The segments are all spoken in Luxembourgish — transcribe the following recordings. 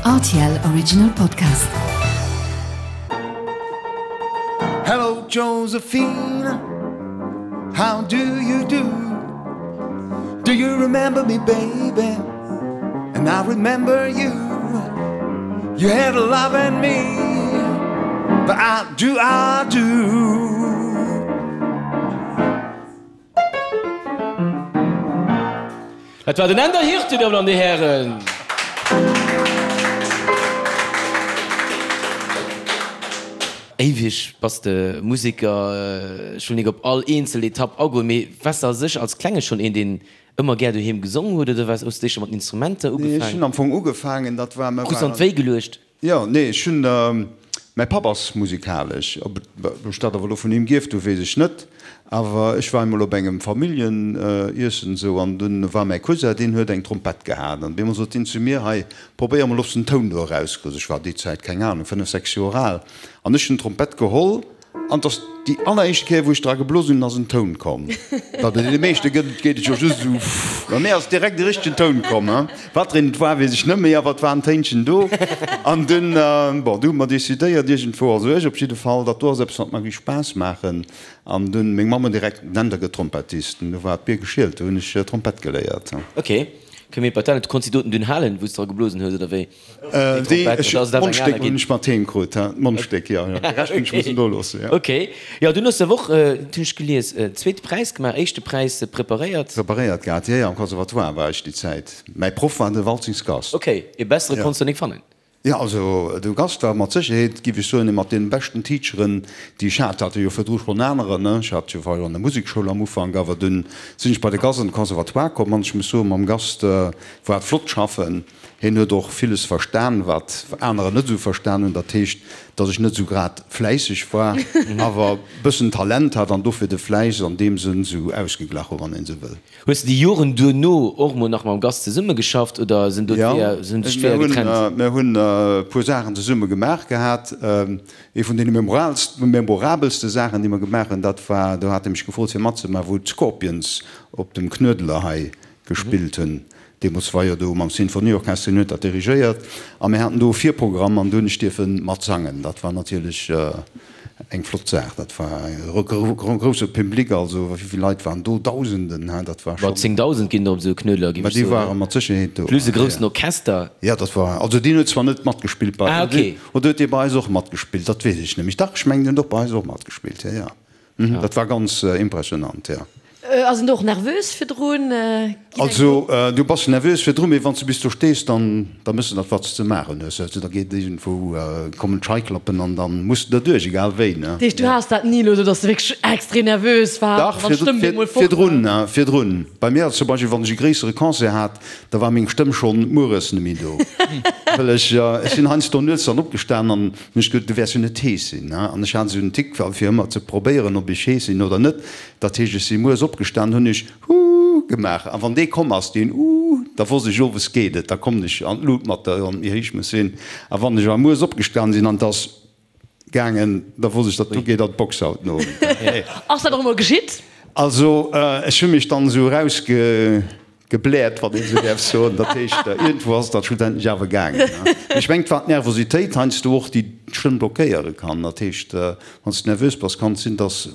Rtl Original Podcast. Hello Josephine, how do you do? Do you remember me baby? And I remember you. You had a love in me, but I do, I do. Dat war den Änder Hirte, Dir Dammen an Dir Hären. Éiweg bass de Museker. Ech wëll nik op all eenzel Etapp agoen, mee waars de a sech als Klenge schonn een, deen ëmmer gär doheem gesong huet oder waars, hues de éischter mat den Instrumenter Nee, ech ugefaangen? hunn am Fong ugefaangen, dat war, mir Krus an waren. d'Wéi geluecht? Jo, nee, ech hunn, mäi Papp ass musikalesch. Ob ech dat awer elo vun him gierft hu weess ech net. Awer ech war emol op engem Familljeniessen esou an dunn war mäi Cousin, deen huet eng Trompett gehat an op eemol sot deen zu mir, hei probéier emol ob s de en Toun do erauskriss. Ech war déi Zäit, keng Ahnung, 5, 6 Joer al an ech hunn d'Trompett geholl An 't ass déi alleréischt Kéier, wou ech dra geblosen hunn, ass en Toun komm. Well bei deene meeschte gëtt et, geet et jo just esou pff. Bei mir ass direkt e richtegen Toun komm. Wat fir een et war, weess ech net méi, awer et war en Téinchen do. An dunn, bon, du hu mer decidéiert iergendwou, also ech op jidde Fall, dat do ass eppes, wat mer géif Spaass maachen. An dunn meng Mamm huet direkt, Nenn der gëtt Trompettist. An du war d'Bier geschielt, du hunn ech Trompett geléiert. Ok, kënne mir Patent, du konns déi doten dunn halen, wou s de dra geblosen hues, oder wéi? D'Mondstéck hunn ech mat heem krut, d'Mondstéck, jo, jo, de Rescht hunn ech mussen do loossen, jo. Ok, jo, dunn hues de awer och, dat hunn ech gelies, zweete Präis gemaach, éischte Präis preparéiert. Preparéiert gehat, jo, jo, am Conservatoire war ech déi Zäit. Mäi Proff war de Waltzings Gast. Ok, ee bessere konns de nik fannen. Jo, also de Gast war mat Sécherheet, giff ech soen, ee mat deene beschten Teacheren, déi ech hat. Hat jo virdru schonn anerer, ne, ech hat jo, war jo an der Musekschoul am Ufank, awer dunn sinn ech bei de Gast an de Conservatoire komm an ech muss soen, mam Gast war et flott schaffen. Hien huet och villes verstan, wat anerer net esou verstan hunn. Dat heescht, datt ech net esou grad fläisseg war, awer bëssen Talent hat an dofir de Fläiss an deem Sënn esou ausgeglach hu, wann een esou wëll. Hues de déi Joren duerno och mol nach mam Gast zesummegeschafft oder sinn do d'Weeër, sinn sech d'Weeër getrennt? Jo, mir hunn e puer Saachen zesumme gemaach gehat. Ee vun deene memorabelste Saachen, déi mer gemaach hunn, dat war, do hat e mech gefrot fir matzemaachen, wou d'Scorpions op dem Knuedler hei gespillt hunn. Deemools war jo do mam Sinfonieorchester, hien huet dat dirigéiert a mir haten do e Virprogramm an do hunn ech dierfe mat sangen. Dat war natierlech eng flott Saach. Dat war e grousse Public, also wéi vill Leit waren do? Dausenden, hein, dat war schonn. 10.000 ginn der op esou e Knuedler, géif Mä ech déi soen. ware mat Sécherheet do. Plus e groussen Orchester. Jo, dat war, also deen huet zwar net matgespillt bei, Ah, okay. oder huet dee bei eis och matgespillt? Dat weess ech net méi. Dach, ech mengen, deen huet och bei eis och matgespillt, jo, jo. Dat war ganz impressionant, jo. Ass een do och nervös virdrun? Also du bass nervös virdrun, mee wann s du bis do stees, dann da méchs de dat wat s ze maachen hues. Also da geet iergendwou, kommen d'Scheiklappen an dann muss de derduerch, egal wéi, ne? Dat heescht du has dat ni elo esou, dass de wierklech extrem nervös waars Dach, an d'Stëmm bemol fort war? virdrun, virdrun. Bei mir ass zum Beispill, wann ech e gréissere Concert hat, da war meng Stëmm schonn mueres net méi do, well ech, ech sinn heiansdo nuets dann opgestan an hunn ech gesot, du wäers jo net hees sinn, ne? An ech hat esou en Tick, fir ëmmer ze probéieren, ob ech hees sinn oder net. Dat heescht, ech si mueres opgestan, hunn ech Huuh gemaach, a wann dee komm ass, deen Uuh, da wosst ech, owes geet et, da kommen ech an d'Lut mat der, wann et méi héich muss sinn. A wann ech awer mueres opgestan sinn an et ass gaangen, da wosst ech, datt do geet an d'Box haut den Owend. Ass dat och emol geschitt? Also, ech hu mech dann esou erausge. Gebläert, wann een esou däerf soen. Dat heescht, iergendwou ass et dann schlussendlech awer gaangen. Mee ech mengen, et war d'Nervositéit heiansdo och, déi d'Stëmm blockéiere kann. Dat heescht, wann s de nervös bass, kann et sinn, dass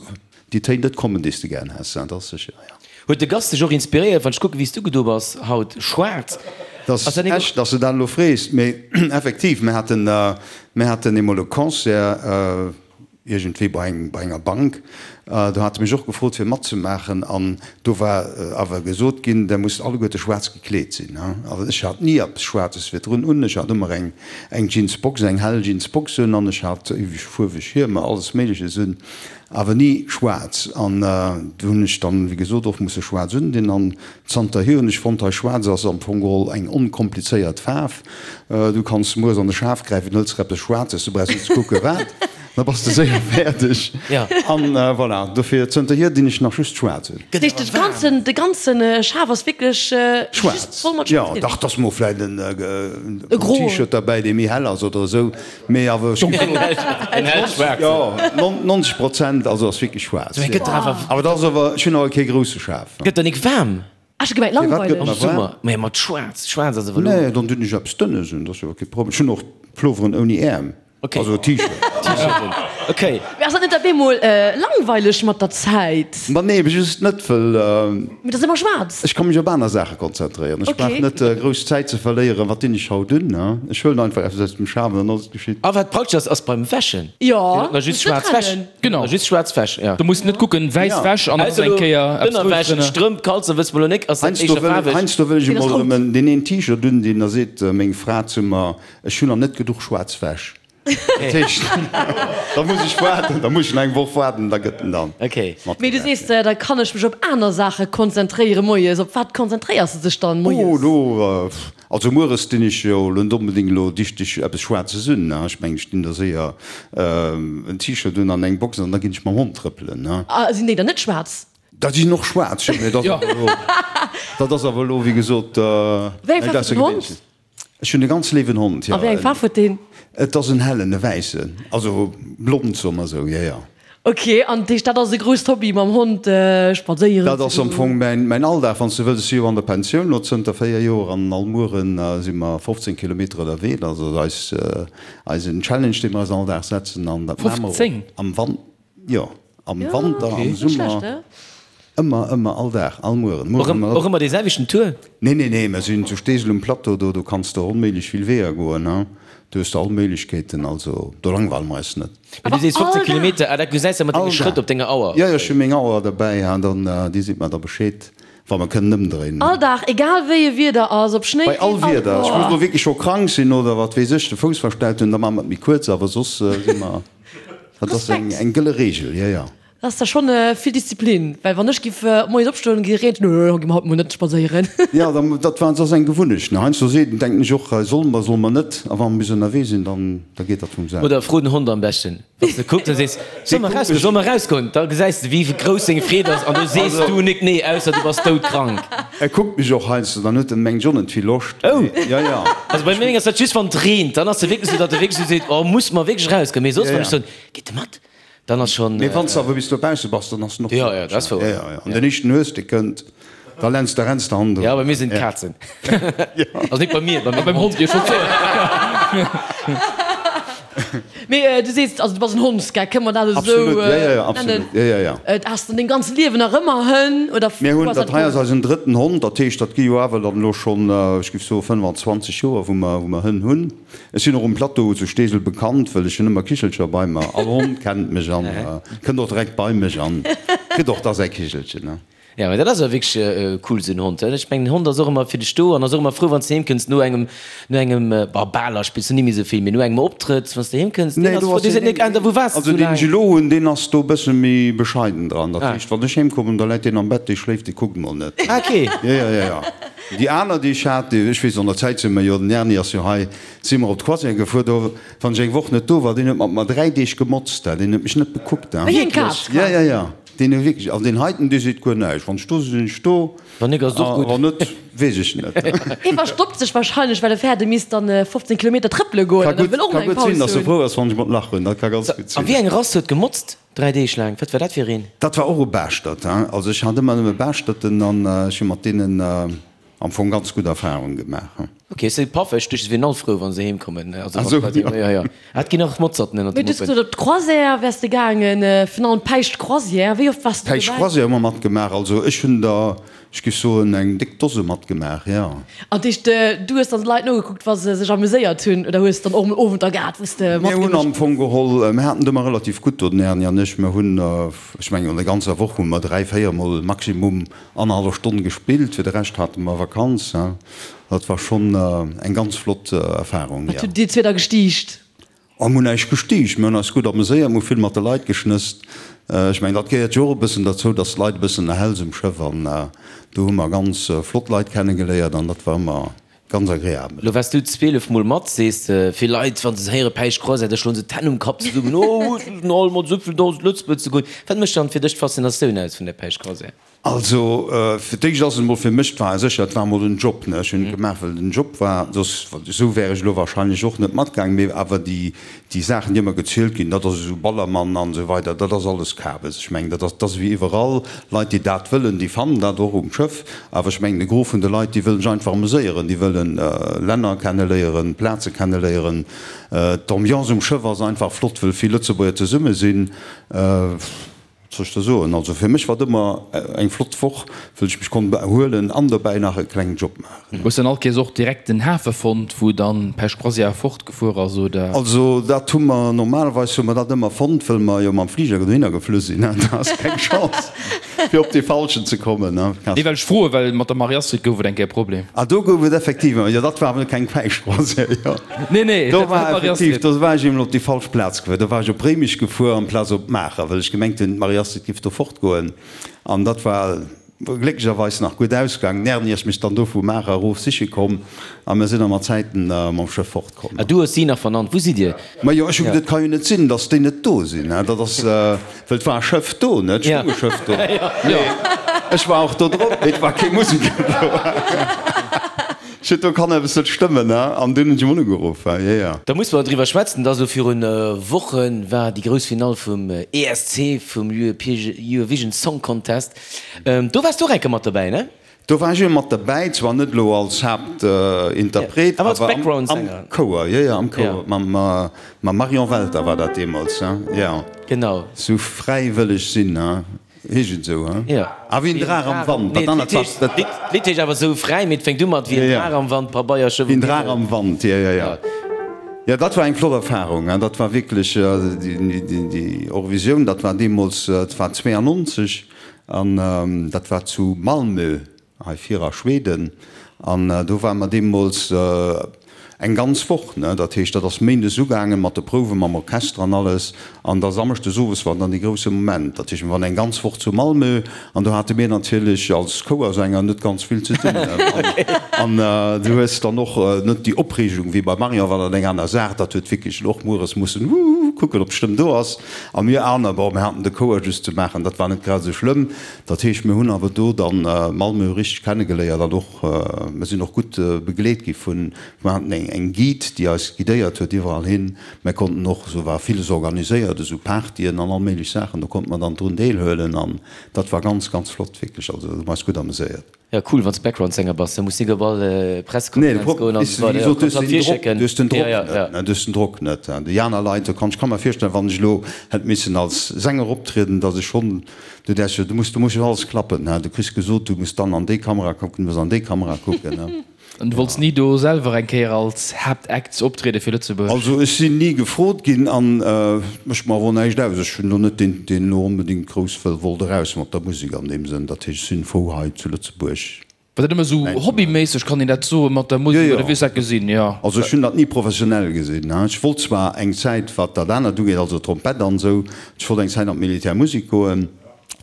déi Téin net kommen, déi s de gären häss. Dat ass sécher, jo. Huet de Gast dech och inspiréiert? Wann ech kucken, wéi s du gedo bass haut, schwaarz, Dat ass ass dat net och. echt, dass de dat elo frees. Mee effektiv, mir haten, mir haten eemol e Concert, iergendwéi bei eng, bei enger Bank, do hate mech och gefrot fir matzemaachen an do war awer gesot ginn, der musst alleguerte schwaarz gekleet sinn. Also ech hat ni eppes Schwaarzes virdrun un, ech hat ëmmer eng, eng Jeansbox, eng hell Jeansbox un an ech hat ewech fuerweg Hiemer, alles Méigleches un, awer ni schwaarz. An do hunn ech dann, wéi gesot, och musse schwaarz undinn an zanterhier hunn ech fonnt, hei schwaarz ass am Fong geholl eng onkomplizéiert Faarf. Du kanns mueres an de Schaf gräifen, hëls der eppes Schwaarzes, du brauchs net ze kucke wat, da bass de séier fäerdeg. An voilà, dofir zënterhier dinn ech nach just schwaarz un. Dat heescht, de ganzen, de ganzen Schaf ass wierklech just voll mat Jo, schwaarz? dach, 't ass mol vläit en T-Shirt derbäi, dee méi hell ass oder esou, mee awer ech En hell schwaarzen. Jo, 90 Prozent also ass wierklech schwaarz. Awer dat ass awer, ech hunn awer kee grousse Schaf. Gëtt der nik waarm? Ech hu gemengt Firwat gëtt langweileg. Am mer waarm? Summer, mä mat schwaarz, schwaarz ass awer elo. Nee, dann dun ech eppes Dënnes un, dat ass jo kee Problem. Ech hunn och Ploveren ouni Äerm, Okay. also T-Shirt. T-Shirten, okay. Mee ass dat net op eemol langweileg mat der Zäit? Ma nee, ebe just net, wëll. Mee et ass ëmmer schwaarz. Ech ka mech op aner Saache konzentréieren. Ech brauch net grouss Zäit ze verléieren, wat dinn ech haut un? Ech huelen einfach eppes aus dem Schaf an dann ass et geschitt. A wat praktesch ass, ass beim Wäschen. Jo, Dir hutt just schwaarz Wäsch. Genau. Just schwaarz Wäsch, ja. Du muss net kucken, wäiss Ja. Wäsch an dann ass Ausser eng elo Kéier eppes Roudes Ënnerwäsch, drënner. Strëmp, Kalzer, wësse mer elo nik, ass dat Heiansdo éischter wëll, faarweg? heiansdo wëll ech Deen ass emol rout. erëm en, deen een T-Shirt un, deen da seet meng Fra zu mer, ech hunn nach net geduch schwaarz Wäsch. Dat heescht, da muss ech waarden, da muss ech nach eng Woch waarden, da gëtt en dann Okay. Mee du matgewäsch. sees, da kann ech mech op aner Saache konzentréiere moies. Op wat konzentréiers de dech dann Oh, moies? do, Also mueres dinn ech jo elo net onbedéngt elo dichteg eppes Schwaarze's un, ne? Ech mengen, ech dinn da séier en T-Shirt un an eng Box an da ginn ech mam Hond trëppelen, ne? A sinn déi dann net schwaarz? Da sinn och schwaarz, jo, mee dat ass awer elo, dat ass awer elo, wéi gesot, Wéi eng näischt Faarf huet den Hond? Aussergewéinleches. Ech hunn e ganz léiwen Hond, jo. A wéi eng Faarf huet deen? Et ass en hellen, e wäissen, also blond, soe mer esou, jo, jo. Ok, an dat heescht dat ass e grousst Hobby mam Hond spadséieren Dat ass am Fong mäin Alldag, wann s de wëlls. Ech si jo an der Pensioun elo zënter 4 Joer an all Muere si mer 15 Kilometer ënnerwee. Dat ass eis eisen Challenge, dee mer eis all Dag setzen an dat maache mer och 15? am Wan, jo, am Wanter, am Summer. Ëmmer, ëmmer, all Dag, all Mueren. Mueren ëmmer. Och ëmmer dee selwechten Tour? Nee, nee, nee, mer sinn zu Steesel um Plateau, do, do kanns de onméiglech vill Weeër goen, hein. Do hues de all Méiglechkeeten, also do langweile mer eis net. Mee du sees 15 Kilometer, ah dat gesäis de mat denge Schrëtt op denger Auer? Jo, jo, ech hu meng Auer derbäi, hein, dann, déi seet mer da Bescheed, wa mer kënnen ëmdréinen. All Dag, egal wéi e Wieder ass, ob Schnéi, Bei all Reen, Wieder. Ech muss elo wierklech scho krank sinn oder wat weess ech, de Fouss verstellt hunn, da maache mer et méi kuerz, awer soss si mer, dat ass eng, eng gëlle Reegel, jo, jo. Dat ass da schonn vill Disziplin, well wann ech giff moies opstoen, gi reent, nö, gi mer haut mol net spadséieren. Jo, dat war, ass eng Gewunnecht, ne. Heiansdo seet, denken ech och, solle mer, solle mer net, a wa mer bis ënnerwee sinn, dann, da geet dat vum selwen. Oder fro den Hond am beschten, wann s de kucks a sees, solle mer erausgoen, solle mer erausgoen, da gesäis de wéi grouss seng Freed ass an du sees du nik nee, ausser du bass doudkrank. E kuckt mech och heiansdo, dann huet en mengt ech och net vill Loscht. Oh! Jo, jo. Also bei mengem ass dat just wann et reent, dann ass e wierklech esou, datt e wierklech esou seet, oh muss mer wierklech erausgoen, mee soss wann ech soen, gitt de mat? Dann ass schon. Mee wann s de awer bis dobausse bass, dann ass en och Jo, jo, dat ass wouer. Jo, jo, an den éischten Hues, dee kënnt, da lenns de, renns de hannendrun. Jo, bei mir sinn et d'Kazen. Also nik bei mir, bei mengem Beim Hond. Hond, jo, ech wollt soen. Mee du sees, also du bass en Hondsgeck, kënne mer dat esou Absolut, jo, jo, jo, nennen? absolut, jo, jo, jo. Has de an dengem ganze Liewen nach ëmmer Hënn oder Mir wou hunn, ass dat dat hei ass komm? eisen drëtten Hond, dat heescht, dat gi jo awer dann elo schonn, ech géif soe 25 Joer, wou mer, wou mer Hënn hunn. Ech sinn och um Plateau zu Steesel bekannt, wëll ech hunn ëmmer Kichelcher bei mer. All Hond kennt mech an kënnt och direkt bei mech an kritt och da säi Kichelchen. Jo, mee dat ass awer wierklech cool, esou en Hond. Ech mengen, en Hond ass och ëmmer fir dech do an ass och ëmmer frou, wann s de heem kënns no engem, no engem, bah, Baler spills du ni méi esou vill, mee no engem Optrëtt, wann s de heem kënns, deen Nee, ass do frou, ass dee seet deen, nik, Ender, wou waars de also esou deen laang? ech elo hunn, deen ass do e bësse méi bescheiden dran. Dat heescht, wann ech heem kommen, da läit deen am Bett, dee schléift, dee kuckt mol net. Ah, okay. Jo, jo, jo, jo. Déi aner, déi ech hat, déi, ech weess, an der Zäit si mer jo, den Erni ass jo hei, si mer op d'Croisière gefuer, do, wann ech eng Woch net do war, deen huet mat mer 3 Deeg gemotzt, deen huet mech net bekuckt. Wéi eng Kaz? Ja, ja, ja, deen huet wierklech, an deen heiten, dee seet guer näischt, wann ech do sinn, sinn ech do, Wann nik, ass et och gutt. a wann net, weess ech net. Hie verstoppt sech wahrscheinlech, well e fäert, e misst dann 15 Kilometer trëppele goen Ka an e gutt, wëll och ka nach eng gutt sinn, Paus dass e hunn. frou ass, wann ech mat lachen, dat ka ganz gutt A sinn. wéi eng Rass huet gemotzt 3 Deeg laang? Wat war dat fir een? Dat war och e Baaschtert, hein. Also ech hat ëmmer nëmme Baaschterten an ech hu mat deenen am Fong ganz gutt Erfahrung gemaach, hein. Ok, se si paffeg, duerch se wieren all frou wann se heem kommen. Also Ah sou, wann d'Leit, jo jo, ah et ginn och Motzerten ënnert Mee de du hues Muppen. gesot op d'Croisière wäers de gaangen, virun allem d'Päischt Croisière, wéi oft waars du Päischt dobäi? Croisière hu mer matgemaach, also ech hunn der, ech géif soen eng déck Dose matgemaach, jo. An dat heescht du hues dann d'Leit nogekuckt wa se sech amuséiert hunn oder hues dann och emol Owenter gehat wou s de Mir hunn matgemëscht am Fong geholl, mir haten et ëmmer relativ gutt do, den Erni an ech, mir hunn, ech mengen an der ganzer Woch hu mer 3, 4 mol maximum Annerhallef Stonn gespillt, fir de Rescht hate mer Vakanz. Dat war schonn eng ganz flott Erfarung, Wat jo. hutt dir zwee da gestiicht? Oh, mir hunn näischt gestiicht, mir hunn eis gutt ameséiert, mir hu vill mat de Leit geschnësst. Ech mengen, dat gehéiert jo och e bëssen derzou, dass d'Leit e bëssen erhäls um Schëff an do hu mer ganz flott Leit kennegeléiert an dat war ëmmer Ganz agreabel. Lo waars du 12 mol mat, sees de. Vill Leit, wann se héiere Päischt Croisière, da schloen se d'Hänn um Kapp zesummen, Oh, ech sinn all mat esou vill 1.000 Lëtzebuerg ze goen. Wat mécht dann fir dech d'Faszinatioun aus vun der Päischt Croisière? Also, fir d'éischt ass et emol fir mech, et war sécher, et war emol en Job, ne, ech hunn et gemaach, well et en Job war, soss, esou wär ech elo wahrscheinlech och net matgaangen, mee awer déi, déi Saachen, déi ëmmer gezielt ginn, dat ass esou Ballermann an esou weider, dat ass alles Kabes. Ech mengen, dat ass, dat ass ewéi iwwerall, Leit, déi dat wëllen, déi fannen dat och um Schëff, awer ech mengen, de Gros vun de Leit, déi wëllen sech einfach ameséieren, déi wëllen Länner kenneléieren, Plaze kenneléieren. D'Ambiance um Schëff ass einfach flott, wëll vill Lëtzebuerger zesumme sinn. Wat soll ech da soen? Also fir mech war et ëmmer eng flott Woch, wëll ech mech konnt erhuelen an dobäi nach e klengen Job maachen. Hues dann all Kéiers och direkt den Hafe fonnt, wou dann d'Pech Croisière fortgefuer ass, oder? Also dat hu mer, normalerweis hu mer dat ëmmer fonnt, wëll mer jo mam Fliger dohinner geflu sinn. Da ass keng Chance fir op dee falschen ze kommen. Nee, well ech froe well mat der Marie-Astrid gouf et eng Kéier e Problem. Ah, do gouf et effektiv, jo dat war awer keng Päisch Croisière, jo. Nee, nee, Do war effektiv, do war ech eemol op déi falsch Plaz gefuer. Do war ech op Réimech gefuer amplaz op Maacher, well ech gemengt hunn, d'Marie-Astrid giff do fortgoen. An dat war glécklecherweis nach gutt ausgaangen. D'Erni ass mech dann do vu Maacher erof siche komm a mir sinn da mat Zäiten mam Schëff fortkomm. Ah, du hues si nach vernannt. Wou sidd Dir? Majo, ech hu geduet, et ka jo net sinn, datt déi net do sinn. Dat ass, well et war e Schëff do, ne? Et stoung e Schëff do. Mee ech war och do drop, mee et war kee Museker do. Shit, do kann eppes net stëmmen, ne? An dunn hunn ech emol ugeruff, jo, jo. Da musse mer driwwer schwätzen, dass elo virun Woche war déi grouss Finall vum ESC, vum Eurovision Song Contest. Do waars du och eng Kéier mat dobäi, ne? Do war ech jo mat dobäi, zwar net elo als Haaptinterpret, awer als am Chouer, jo, jo, am Chouer, mam Marion Welter war dat deemools, jo. Genau. Sou fräiwëlleg sinn, ne? Heescht et esou, he? Jo. Ah, wéi en Draach am Wand. Nee, d'Lidd heescht awer Sou fräi, mee et fänkt u mat Wéi en Draach am Wand, Pabeierschëff um Himmel. Wéi en Draach am Wand, jo, jo, jo. Jo, dat war eng flott Erfarung, he. Dat war wierklech déi Eurovisioun, dat war deemools, dat war 92 an dat war zu Malmö. Hei vir a Schweden, an do ware mer deemools eng ganz Woch, ne, dat heescht, dat ass méindes ugaangen mat de Prouwe mam Orchester an alles, an da samschdes owes war dann dee grousse Moment. Dat heescht, mir waren eng ganz Woch zu Malmö an do hate mir natierlech als Chouersänger net ganz vill ze dinn. An du hues dann och net déi Opreegung wéi beim Marion, war dat eng aner Saach, dat huet wierklech och mueres mussen kucken, ob d'Stëmm do ass. A mir aner, bon, mir haten de Chouer just ze maachen, dat war net grad esou schlëmm. Dat heescht, mir hunn awer do dann Malmö richteg kennegeléiert an och, mir sinn och gutt begleet gi vun, mir haten eng eng Guide, déi eis guidéiert huet iwwerall hin. Mir konnten och, esou war villes organiséiert, esou Partyen an all méiglech Saachen, do konnte mer dann drun deelhuelen an dat war ganz, ganz flott, wierklech. Also hu mer eis gutt ameséiert. Ja cool, wanns de Background-Sänger bass, da muss nik op all Pressekonferenz goen an esou weider, kanns dat virschécken. Du hues den Drock net, ne, du hues den Drock net. Déi aner Leit, do kann, ech ka mer virstellen, wann ech elo hätt missen als Sänger optrieden, datt ech schonn, du däers jo, du muss, du muss jo alles klappen, ne, du kriss gesot, du muss dann an déi Kamera kucken, du muss an déi Kamera kucken, ne. An du wollts ni do selwer eng Kéier als Haaptact optriede fir Lëtzebuerg? Also ech sinn ni gefrot ginn an mécht mer awer och näischt aus. Ech hunn elo net deen, deen elo onbedéngt grouss wëll wollt eraus mat der Musek an deem Sënn. Dat heescht, ech sinn frou hei zu Lëtzebuerg War dat ëmmer esou mäin ze maachen. hobbyméisseg, kann een dat soen, mat der Jo, Musek jo. oder wéi hues du dat gesinn? Jo. Also ech hunn dat ni professionell gesinn. Ech wollt zwar eng Zäit, wat dat anert ugeet, also Trompett an esou, ech wollt eng Zäit an d'Militärmusek goen.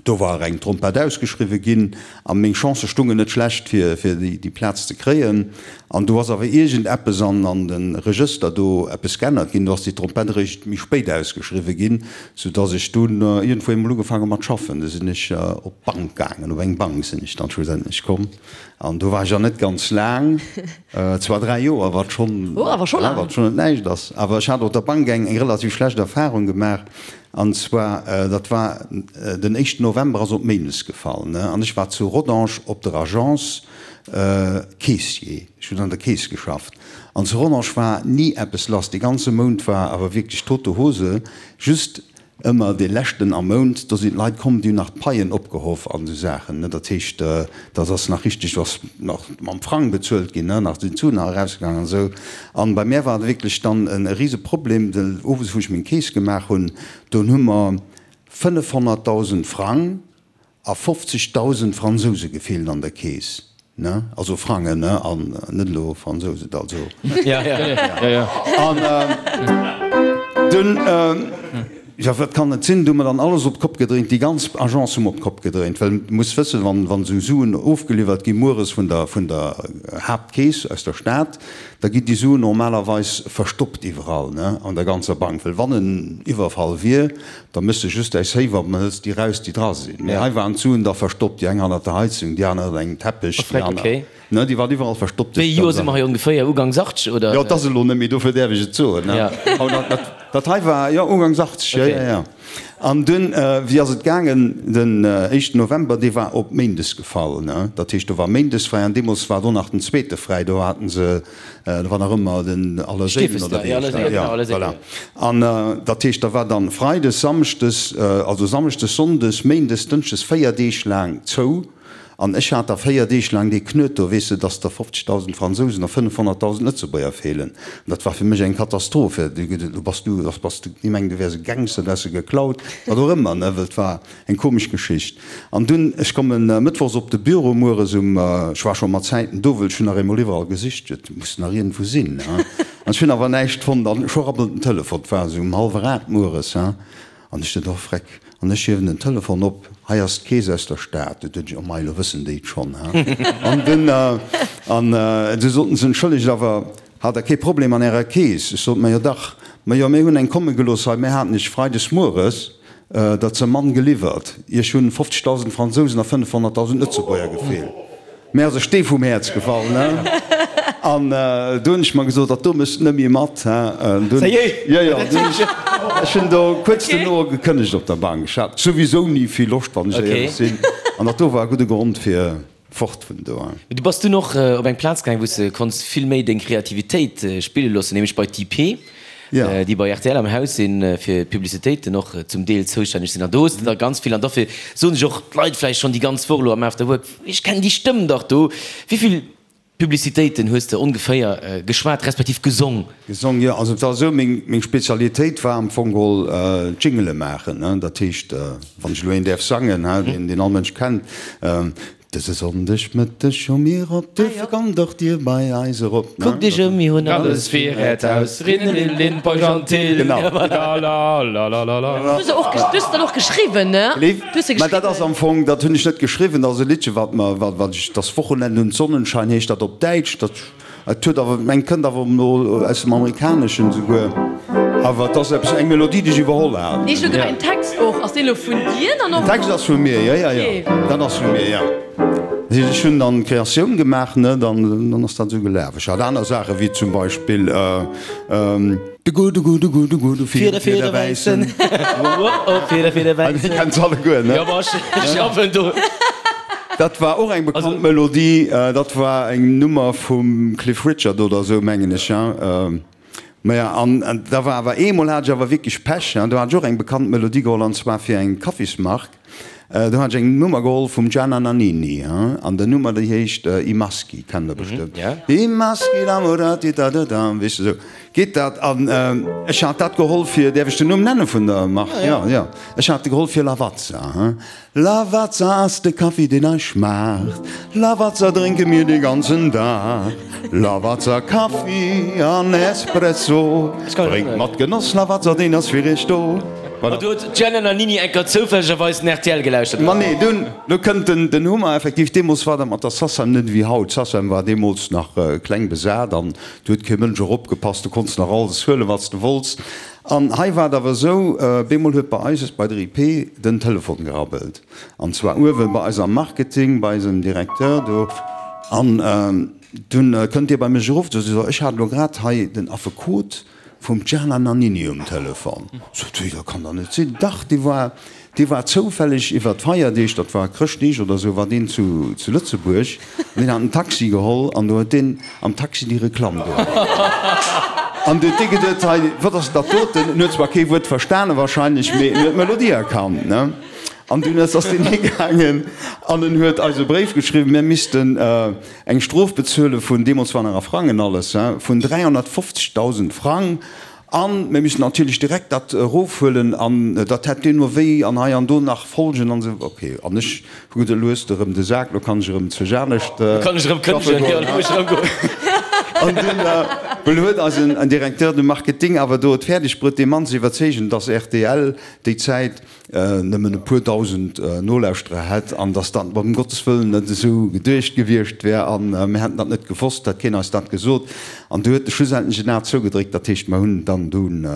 Do war eng Trompett ausgeschriwwe ginn a meng Chancë stungen net schlecht fir fir déi Plaz ze kréien. An do ass awer iergend eppes an an de Regëster do eppes geännert ginn. Do ass déi Trompett eréischt méi spéit ausgeschriwwe ginn, sou dass ech dunn iergendwou eemol ugefaange mat schaffen. Du sinn ech op d'Bank gaangen, op eng Bank sinn ech dann schlussendlech komm an do war ech an net ganz laang, zwar 3 Joer, wat schonn wat schonn net näischt ass, awer ech hat op der Bank eng relativ schlecht Erfarung gemaach. An zwar, dat war den éischten November, ass op Méindes gefall, ne, an ech war zu Rodange op der Agence Caissier, ech hunn an der Keess geschafft, an zu Rodange war ni eppes lass, dee ganze Mount war awer wierklech tote Hose, just ëmmer dee leschten am Mount, do sinn d'Leit komm, déi hunn nach d'Paien opgehoff an esou Saachen, ne, dat heescht, dat ass nach richteg, do ass nach mam Frang bezuelt ginn, ne, nach sinn d'Suen nach erausgaangen an esou. An bei mär war et wierklech dann e rise Problem, well owes wou ech meng Keess gemaach hunn, dunn hu mer 500.000 Frang a 50.000 Fransouse gefeelt an der Keess, ne, also Frangen, ne, an net elo Fransouse, also. An dunn. Jo, wat kann et sinn? Du hu mer dann alles op d'Kopp gedréint, déi ganz Agence hu mer op d'Kopp gedréint, well du muss wëssen, wann, wann esou Suen ofgeliwwert gi mueres vun der, vun der Haaptkeess aus der Stad, da ginn déi Suen normalerweis verstoppt iwwerall, ne, an der ganzer Bank, well wann en Iwwerfall wier, da méchs de just däi Safe op an hëls déi raus, déi dra sinn. Mee hei waren d'Suen da verstoppt, déi eng hannert der Heizung, déi aner ënner engem Teppech, déi aner. Ne, déi waren iwwerall verstoppt. Wéi Joer si mer hei ongeféier? Ugangs 80 oder? Jo, 't ass elo net méi, dofir däerf ech et soen, ne? Dat, dat hei war, jo, ugangs 80, jo, jo, jo. An dunn, wéi ass et gaangen? Den éischten November, dee war op Méindes gefall, ne? Dat heescht, do war Méindes fräi an deemools war do nach den zweete fräi, do haten se, do war nach ëmmer den Allerséilen oder wéi heescht dat? Jo, voilà. An dat heescht, da war dann Freides, Samschdes, also Samschdes, Sonndes, Méindes, Dënschdes, 4 Deeg laang zou. An ech hat da 4 Deeg laang dee Knuet do, weess de, dass der 50.000 Fransousen a 500.000 Lëtzebuerger feelen. An dat war fir mech eng Katastroph. Do bass du, da bass du, déi mengen, du wäers e Gangster, du häss se geklaut, wat och ëmmer, ne, well et war eng komesch Geschicht. An dunn, ech kommen mëttwochs op de Büro mueres um, ech war scho mat Zäiten do, wëll ech hunn nach eemol iwwerall gesicht, et muss nach iergendwou sinn, ne. An ech hunn awer näischt fonnt. An scho rabbelt den Telefon, et war esou um hallwer 8 mueres, he. An ech sot, Oh Freck! An ech hiewen den Telefon op, Hei ass d'Keess aus der Stad. Du duecht ech, Oh mei, elo wëssen déi et schonn, he? An dunn, an du soten se, Entschëllegt, awer hat Der kee Problem an Ärer Keess? Ech sot, Majo dach, majo mir hunn eng komme gelooss hei, mir haten iech freides mueres der ze mann geliwwert, iech hunn 50.000 Fransousen a 500.000 Lëtzebuerger gefeelt. Mir ass e Stee vum Häerz gefall, ne? An du hunn ech mer gesot, dat do méchs de net méi mat, he? Dunn, jo, jo, dunn ech, ech hunn do kuerz duerno gekënnegt op der Bank. Ech hat souwisou ni vill Loscht, wann ech éierlech sinn. An dat do war e gudde Grond fir fort vun do. Mee du bass dunn och op eng Plaz gaang, wou s de konns vill méi deng Kreativitéit spille loossen, nämlech bei d'IP. Déi bei rtl am Haus sinn, fir d'Publicitéiten och zum Deel zoustänneg sinn. An do hues de der ganz vill, an dofir soen sech och d'Leit vläicht schonn déi ganz Woch elo am After Work, ech kennen déi Stëmm dach do. Wéi vill Publicitéiten hues de ongeféier geschwat, respektiv gesong? Gesong, jo. Also et war esou, meng Spezialitéit war am Fong geholl Jingele maachen. Dat heescht, wann ech elo een däerf sangen, deen all Mënsch kennt, Dëse Sonndeg Mëtteg hu mir op, duerfir kommt och dir bei eis erop. Kuckt iech ëm, mir hunn alles fir äert Haus, Rindelin, Peugeantil, Lalalala. Du hues se och, du hues se dann och geschriwwen, ne? Du hues se Mä dat ass am Fong, dat hunn ech net geschriwwen, dat ass e Liddche wat mer, wat ech, Das Wochenende und Sonnenschein heescht dat op Däitsch, dat. Et huet awer, meng kënnt awer no aus dem Amerikaneschen esouguer, awer et ass eppes, eng Melodie, déi ech iwwerholl hat. Nee, ech hu gemengt den Text och. Ass deen elo vun dir dann och? Den Text ass vu mir, jo, jo, jo, dat ass vu mir, jo. Dat heescht, ech hunn dann d'Kreatioun gemaach, ne, dann, dann ass dat esou gelaf. Ech hat aner Saachen, wéi zum Beispill. De gudde, gudde, gudde, gudde Fieder, Fieder wäissen. Fieder, Fieder wäissen. Dir kennt se alleguer, ne? Jo, ma ech schaffen do. Dat war och eng bekannt Melodie. Dat war eng Nummer vum Cliff Richard oder esou, mengen ech, ja. Maja, an da war awer eemol hat ech awer wierklech Pech, do hat ech och eng bekannt Melodie geholl, an zwar fir eng Kaffismark. Do hat ech eng Nummer geholl vum Gianna Nannini, an der Nummer déi heescht I Maschi, kennt der bestëmmt. I maschi innamorati da da da, weess de, esou geet dat. An ech hat dat geholl fir, däerf ech den Numm nenne vun der Mark? Jo, jo. Ech hat de geholl fir Lavazza. Lavazza ass de Kaffi deen eis schmaacht, Lavazza drénke mir de ganzen Dag, Lavazza Kaffi an Espresso, drénkt mat Genoss Lavazza, deen ass fir iech do. An do huet d'Gianna Nannini enker zoufällegerweis den rtl gelauschtert. Ma nee, dunn, do kënnt den, den Hummer effektiv. Deemools war dat mat der Sacem net ewéi haut. D'Sacem war deemools nach kleng besat an do huet kee Mënsch eropgepasst. Du konns nach alles huelen, wat s de wollts. An hei war et awer esou, bemol huet bei eis, bei der IP, den Telefon gerabbelt. An zwar uewe bei eis am Marketing, bei eisem Directeur do. An dunn kënnt dee bei mech erof, sot e, ech hat elo grad hei den Affekot, Vum Gianna Nannini um Telefon. Sot si, dat kann dach net sinn. Dach, dee war, dee war zoufälleg iwwer d'Feierdeeg, dat war Chrëschtdeeg oder esou, war deen zu, zu Lëtzebuerg an deen hat en Taxi geholl an do huet deen am Taxi déi Reklamm geholl. An du huet dee geduet, hei, wat ass dat doten? En huet zwar kee Wuert verstane wahrscheinlech, mee en huet d'Melodie erkannt, ne? An dunn ass deen higaangen an en huet eis e Bréif geschriwwen, mir missten, Eng Strof bezuele vun, deemools war nach a Frangen alles, vun 350.000 Frang. A mir missten natierlech direkt dat erofhuelen an dat hätt deemno wéi an hei an do nach Folgen an esou. Ok, an ech hu geduet, elo hues de erëm de Sak, elo kann ech erëm zu Janescht Elo kann ech erëm schaffe kënnegen, goen. jo, elo muss ech erëm goen. An dunn well huet eisen Directeur de Marketing awer do et fäerdeg bruet, dee Mann ze iwwerzeegen, dass rtl déi Zäit nëmmen e puer dausend Nolauschterer hätt an dass dat ëm Gottes Wëllen net esou geduecht gewiescht wär a mir hätten dat net gewosst, hätt keen eis dat gesot. An du huet e schlussendlech en A zougedréckt, dat heescht mer hunn dann dunn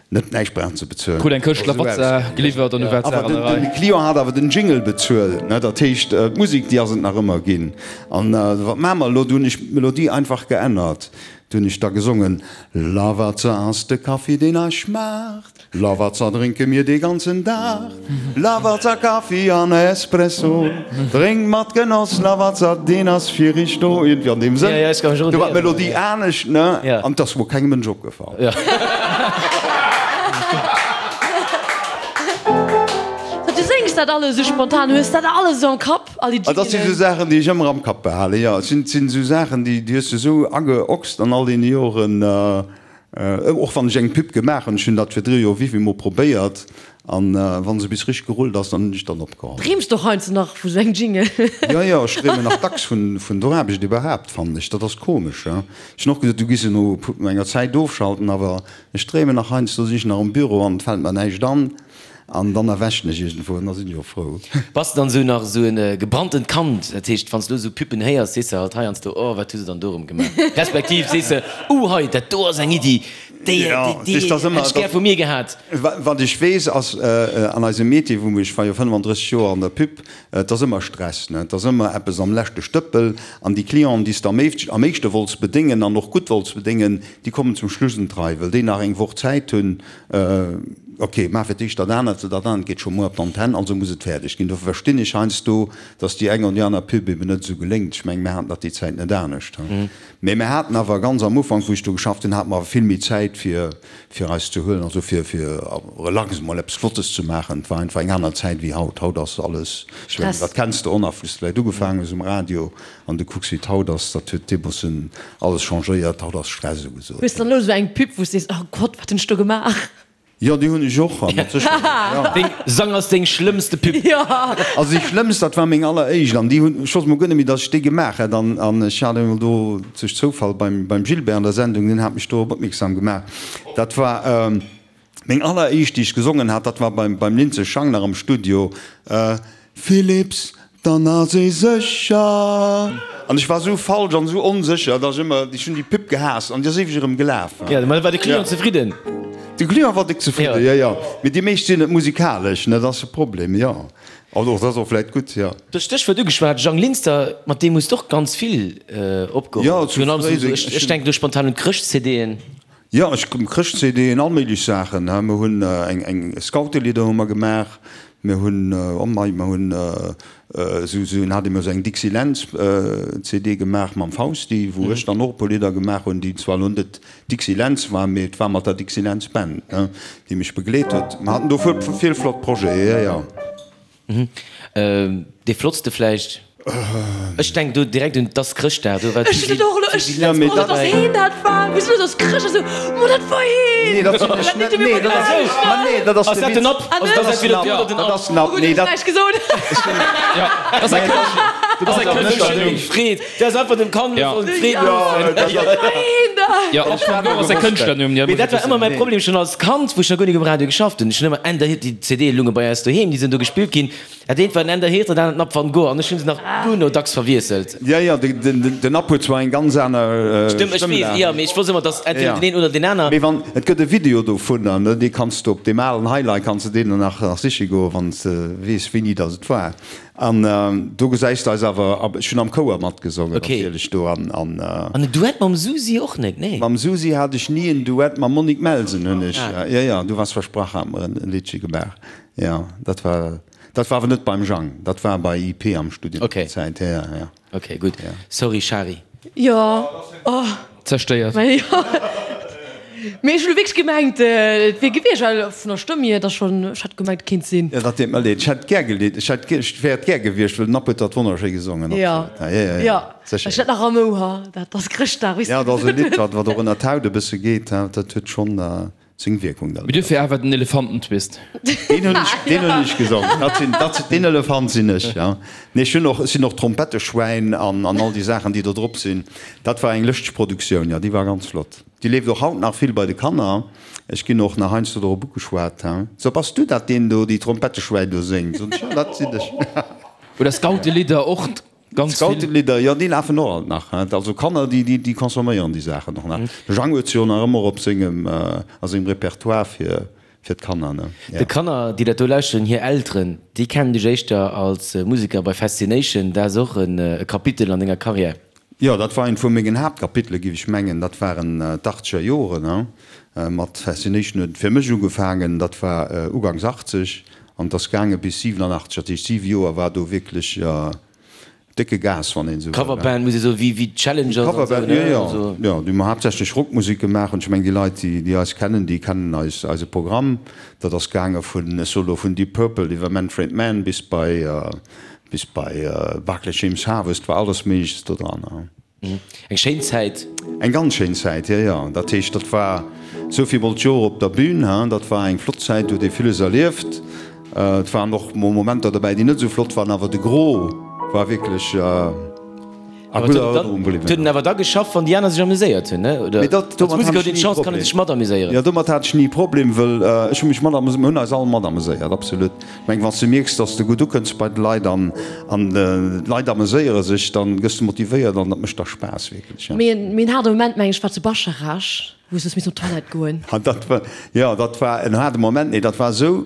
net näischt brauchen ze bezuelen. Krut eng Këscht Lavazza geliwwert an du war d'Saach an der Rei. De Client hat awer den Jingle bezuelt, ne, dat heescht d'Musek déi ass et nach ëmmer ginn. An wat maache mer elo? Du hunn ech d'Melodie einfach geännert. Du hunn ech da gesongen, Lavazza ass de Kaffi deen eis schmaacht. Lavazza drénke mir dee ganzen Dag, Lavazza Kaffi an Espresso, drénkt mat Genoss Lavazza, deen ass fir iech do. Iergendwéi an deem Sënn. Do war d'Melodie anescht, ne? An 't ass mol kengem Mënsch opgefall. Du séngs dat alles esou spontan, hues dat alles esou am Kapp, all déi Dat si sou Jingelen? Saachen, déi ech ëmmer am Kapp behalen, jo. Et sinn esou Saachen, déi hues de esou ageochst an all deene Joren. Och wann ech eng Pub gemaach hunn, ech hunn dat virdru jo wéivill mol probéiert, an wann se bis richteg gerullt ass, dann hunn ech dann opgeholl. Dreems de och heiansdo nach vu sou engem Jingle? Jo, jo, ech dreemen nach dacks vun der Aarbecht iwwerhaapt, fannen ech. Dat ass komesch, jo. Ech hunn och gesot, du giss se no enger Zäit ofschalten, awer ech dreemen nach heiansdo, sinn ech nach am Büro an et fält mer näischt an. An dann erwächen ech iergendwou an da sinn ech och frou. Bass de dann esou nach esou en gebranntent Kand? Dat heescht, wann s de elo esou Puppen héiers, sees de halt heiansdo, oh, wat hu se dann do erëm gemaach? Respektiv sees de, uh, hei, dat do ass eng Iddi, déi, déi hätt ech gär vu mir gehat. Wat ech weess, ass, an eisem Métier, wou ech war jo 35 Joer an der Pub, et ass ëmmer Stress, ne? Et ass ëmmer eppes am leschte Stëppel. An déi Clienten, déi s de am éischte wollts bedéngen an och gutt wollts bedéngen, déi kommen zum Schluss un d'Rei, well déi nach eng Woch Zäit hunn, Ok, maach fir d'éischt dat anert, dat anert geet scho muer op d'Antenn, also muss et fäerdeg ginn. Dofir verstinn ech heiansdo, datt déi eng oder déi aner Pub eben net esou geléngt. Ech mengen, mir haten dat déi Zäit net anescht. Mee mir haten awer ganz am Ufank, wou ech do geschafft hunn, hate mer awer vill méi Zäit fir, fir eis ze huelen, also fir, fir relax emol eppes Flottes ze maachen. Et war einfach eng aner Zäit wéi haut. Haut ass alles, ech mengen, dat kenns de och nach, wou s de vläicht ugefaangen hues um Radio an du kucks wéi et haut ass, dat huet deemoossen alles changéiert. Haut ass Stress ugesot. Hues de dann elo esou eng Pub, wou s de sees, oh Gott, wat hunn ech do gemaach? Jo, déi hunn ech och, a mat Sécherheet, jo. Deng Sang ass deng schlëmmste Pub. Jo. Also déi schlëmmst, dat war meng alleréischt, an déi hunn, ech wosst mol guer net méi, datt ech déi gemaach hätt, an an ech hat emol do duerch Zoufall beim beim Gilbert an der Sendung, deen hat mech dorop opmierksam gemaach. Dat war meng alleréischt, déi ech gesongen hat, dat war beim beim Lindsay Schang nach am Studio. Philips, Dann ass ee sécher. An ech war esou falsch an esou onsécher, dass ech ëmmer, ech hunn déi Pub gehaasst an déi ass éiweg erëm gelaf. Jo, mä war de Client zefridden? De Client war déck zefridden, jo, jo. Mee déi meescht sinn net musikalesch, ne, dat ass de Problem, jo. Also och dat ass och vläit gutt, jo. Du hues d'Stéchwuert ugeschwat, Jang Linster, mat deem hues de och ganz vill opgeholl. Jo, zu Fréiseng. Ech denken do spontan un d'Chrëscht-CDen. Jo, ech Chrëscht-CDen, all méiglech Saachen. Mir hunn eng eng Scoutelidder hu mer gemaach. Mir hunn, oh mei, mer hunn esou esou en hat emol esou eng Dixie Lentz CD gemaach mam Fausti, wou ech dann och e puer Lidder gemaach hunn, déi zwar elo net Dixie Lentz waren, mee et war mat der Dixie Lentz Band, ne, déi mech begleet huet. Mer haten do vill flott Projete, jo, jo. Dee flottste vläicht? Ech denken do direkt un 't ass Chrëschtdag, do war Ech hunn och elo, ech, oh dat ass heen, dat war, wéi sou, dat ass Chrëscht, ech sou, mo dat war heen! Nee, dat sinn ech net, nee, dat ass, ma nee, dat ass de Witz. Ah, dat ass den App, dat ass den App, nee, dat. Oh gutt, ech hunn näischt gesot. Dat ass eng dat ass eng Kënschtlernumm. Freed, dat ass einfach dem Kand sollen d'Freed loossen. Dat war heen dat! Jo, App van Gogh ass eng Kënschtlernumm, Mee dat war ëmmer mäi Problem schonn als Kand, wou ech nach guer nik um Radio geschafft hunn. Ech hunn ëmmer Ender Hirt, déi CDe lunge bei eis doheem, déi sinn do gespillt ginn. Dat eent war den Ender Hirt, dat anert den App van Gogh an ech hunn se nach duerno dacks verwiesselt. Jo, jo, den App huet zwar eng ganz aner Stëmm, ech weess, jo, mee ech wosst ëmmer, dass entweder den een oder deen aner. Mee wann, et gëtt e Video dovunner, ne, dee kanns de op deem alen Highlight kanns de deen nach siche goen, wann s de weess, wéini dass et war. An do gesäis de eis awer, ech hunn am Chouer matgesongen natierlech do an. An en Duett mam Susi och net, nee? Mam Susi hat ech ni en Duett, mam Monique Melsen hunn ech, jo jo, Du warst versprach hat mer en Liddche gemaach, jo. Dat war, dat war awer net beim Jang, dat war bei IP am Studio déi Zäit, jo jo. Ok, gutt. Sorry Shari. Jo, oh. Zerstéiert. Mee jo. Mee ech hunn elo wierklech gemengt, et wier gewiescht, well vun der Stëmm hier, et ass schonn, ech hätt gemengt, et kéint sinn. Jo, dat deet mer leed. Ech hätt gär gelidd, ech hätt, ech wär et gär gewiescht, well den App huet dat wonnerschéi gesongen. Jo, Absolut. Ja, ja, jo. Sécher. Ech hat nach am Ouer, dat ass Chrëschtdag, wéi s Ja, du dat ass e gesot Lidd, hues. wat, wat och ënner d'Haut e bësse geet, dat huet schonn. Seng Wierkung dann. Mee duerfir awer den Elefantentwist. Deen hunn ech, deen hunn ech gesongen. Dat sinn, dat, deen Elefant sinn ech, ja. Nee, ech hunn och, ech sinn och Trompettesschwäin an, an all déi Saachen, déi do drop sinn. Dat war eng lëschteg Produktioun, jo, déi war ganz flott. Déi leeft och haut nach vill bei de Kanner. Ech ginn och nach heiansdo dorop ugeschwat, he. So, bass du dat, deen do déi Trompettesschwäin do séngt? Soen ech, jo, dat sinn ech. Oder Scoutelidder och. Ganz vill. Scoutelidder, jo, déi lafen och alt nach. Also Kanner, déi, déi, déi consomméieren déi Saachen och nach. De Jang huet se jo nach ëmmer op sengem, a sengem Repertoire fir, fir d'Kanner, ne? Ja. De Kanner, déi dat do lauschteren, hir Elteren, déi kennen dech éischter als Museker bei Fascination. Dat ass och e Kapitel an denger Karriär. Jo, dat war eent vu mengen Haaptkapitele, géif ech mengen. Dat waren d'Achtzeger Joren, ne? Mat Fascination huet et fir mech ugefaangen. Dat war ugangs 80 An et ass gaange bis 87, dat heescht 7 Joer war do wierklech décke Gas, wann een esou wëll. Coverband muss ee soen, wéi wéi d'Challengers an esou, Coverband, jo, jo, jo, déi hu mer haaptsächlech Rockmusek gemaach. An ech mengen, déi Leit, déi déi eis kennen, déi kennen eis eise Programm. Dat ass gaange vun, ech soe lo, vun Deep Purple iwwer Manfred Mann bis bei bis bei Barclay James Harvest, war alles Méigleches do dran. Eng schéin Zäit. Eng ganz schéin Zäit, jo, jo. Dat heescht, dat war esou vill mol d'Joer op der Bühn, hein. Dat war eng flott Zäit, do huet ee villes erlieft. Et waren och mol Momenter dobäi, déi net esou flott waren, awer de Gros war wierklech a gudder Erënnerung bliwwen. Et huet en awer da geschafft, wann déi aner sech amuséiert hunn, ne? Oder Mee dat, als domat Museker hat huet ech een ni e d'Chance, kann ee Problem. sech matamuséieren. Jo, domat hat ech ni e Problem, wëll ech hu mech matamuséiert, mir hunn eis all matamuséiert, absolut. Ech mengen, wann s de mierks, dass s de gutt ukënns bei de Leit an d'Leit ameséiere sech, dann gëss de motivéiert an dat mécht da Spaass wierklech, jo. Mee en haarde Moment, meng ech, war zu Bascharage, wou s du hues missen op d'Toilette goen. Dat war, jo, dat war en haarde Moment. Nee, dat war esou,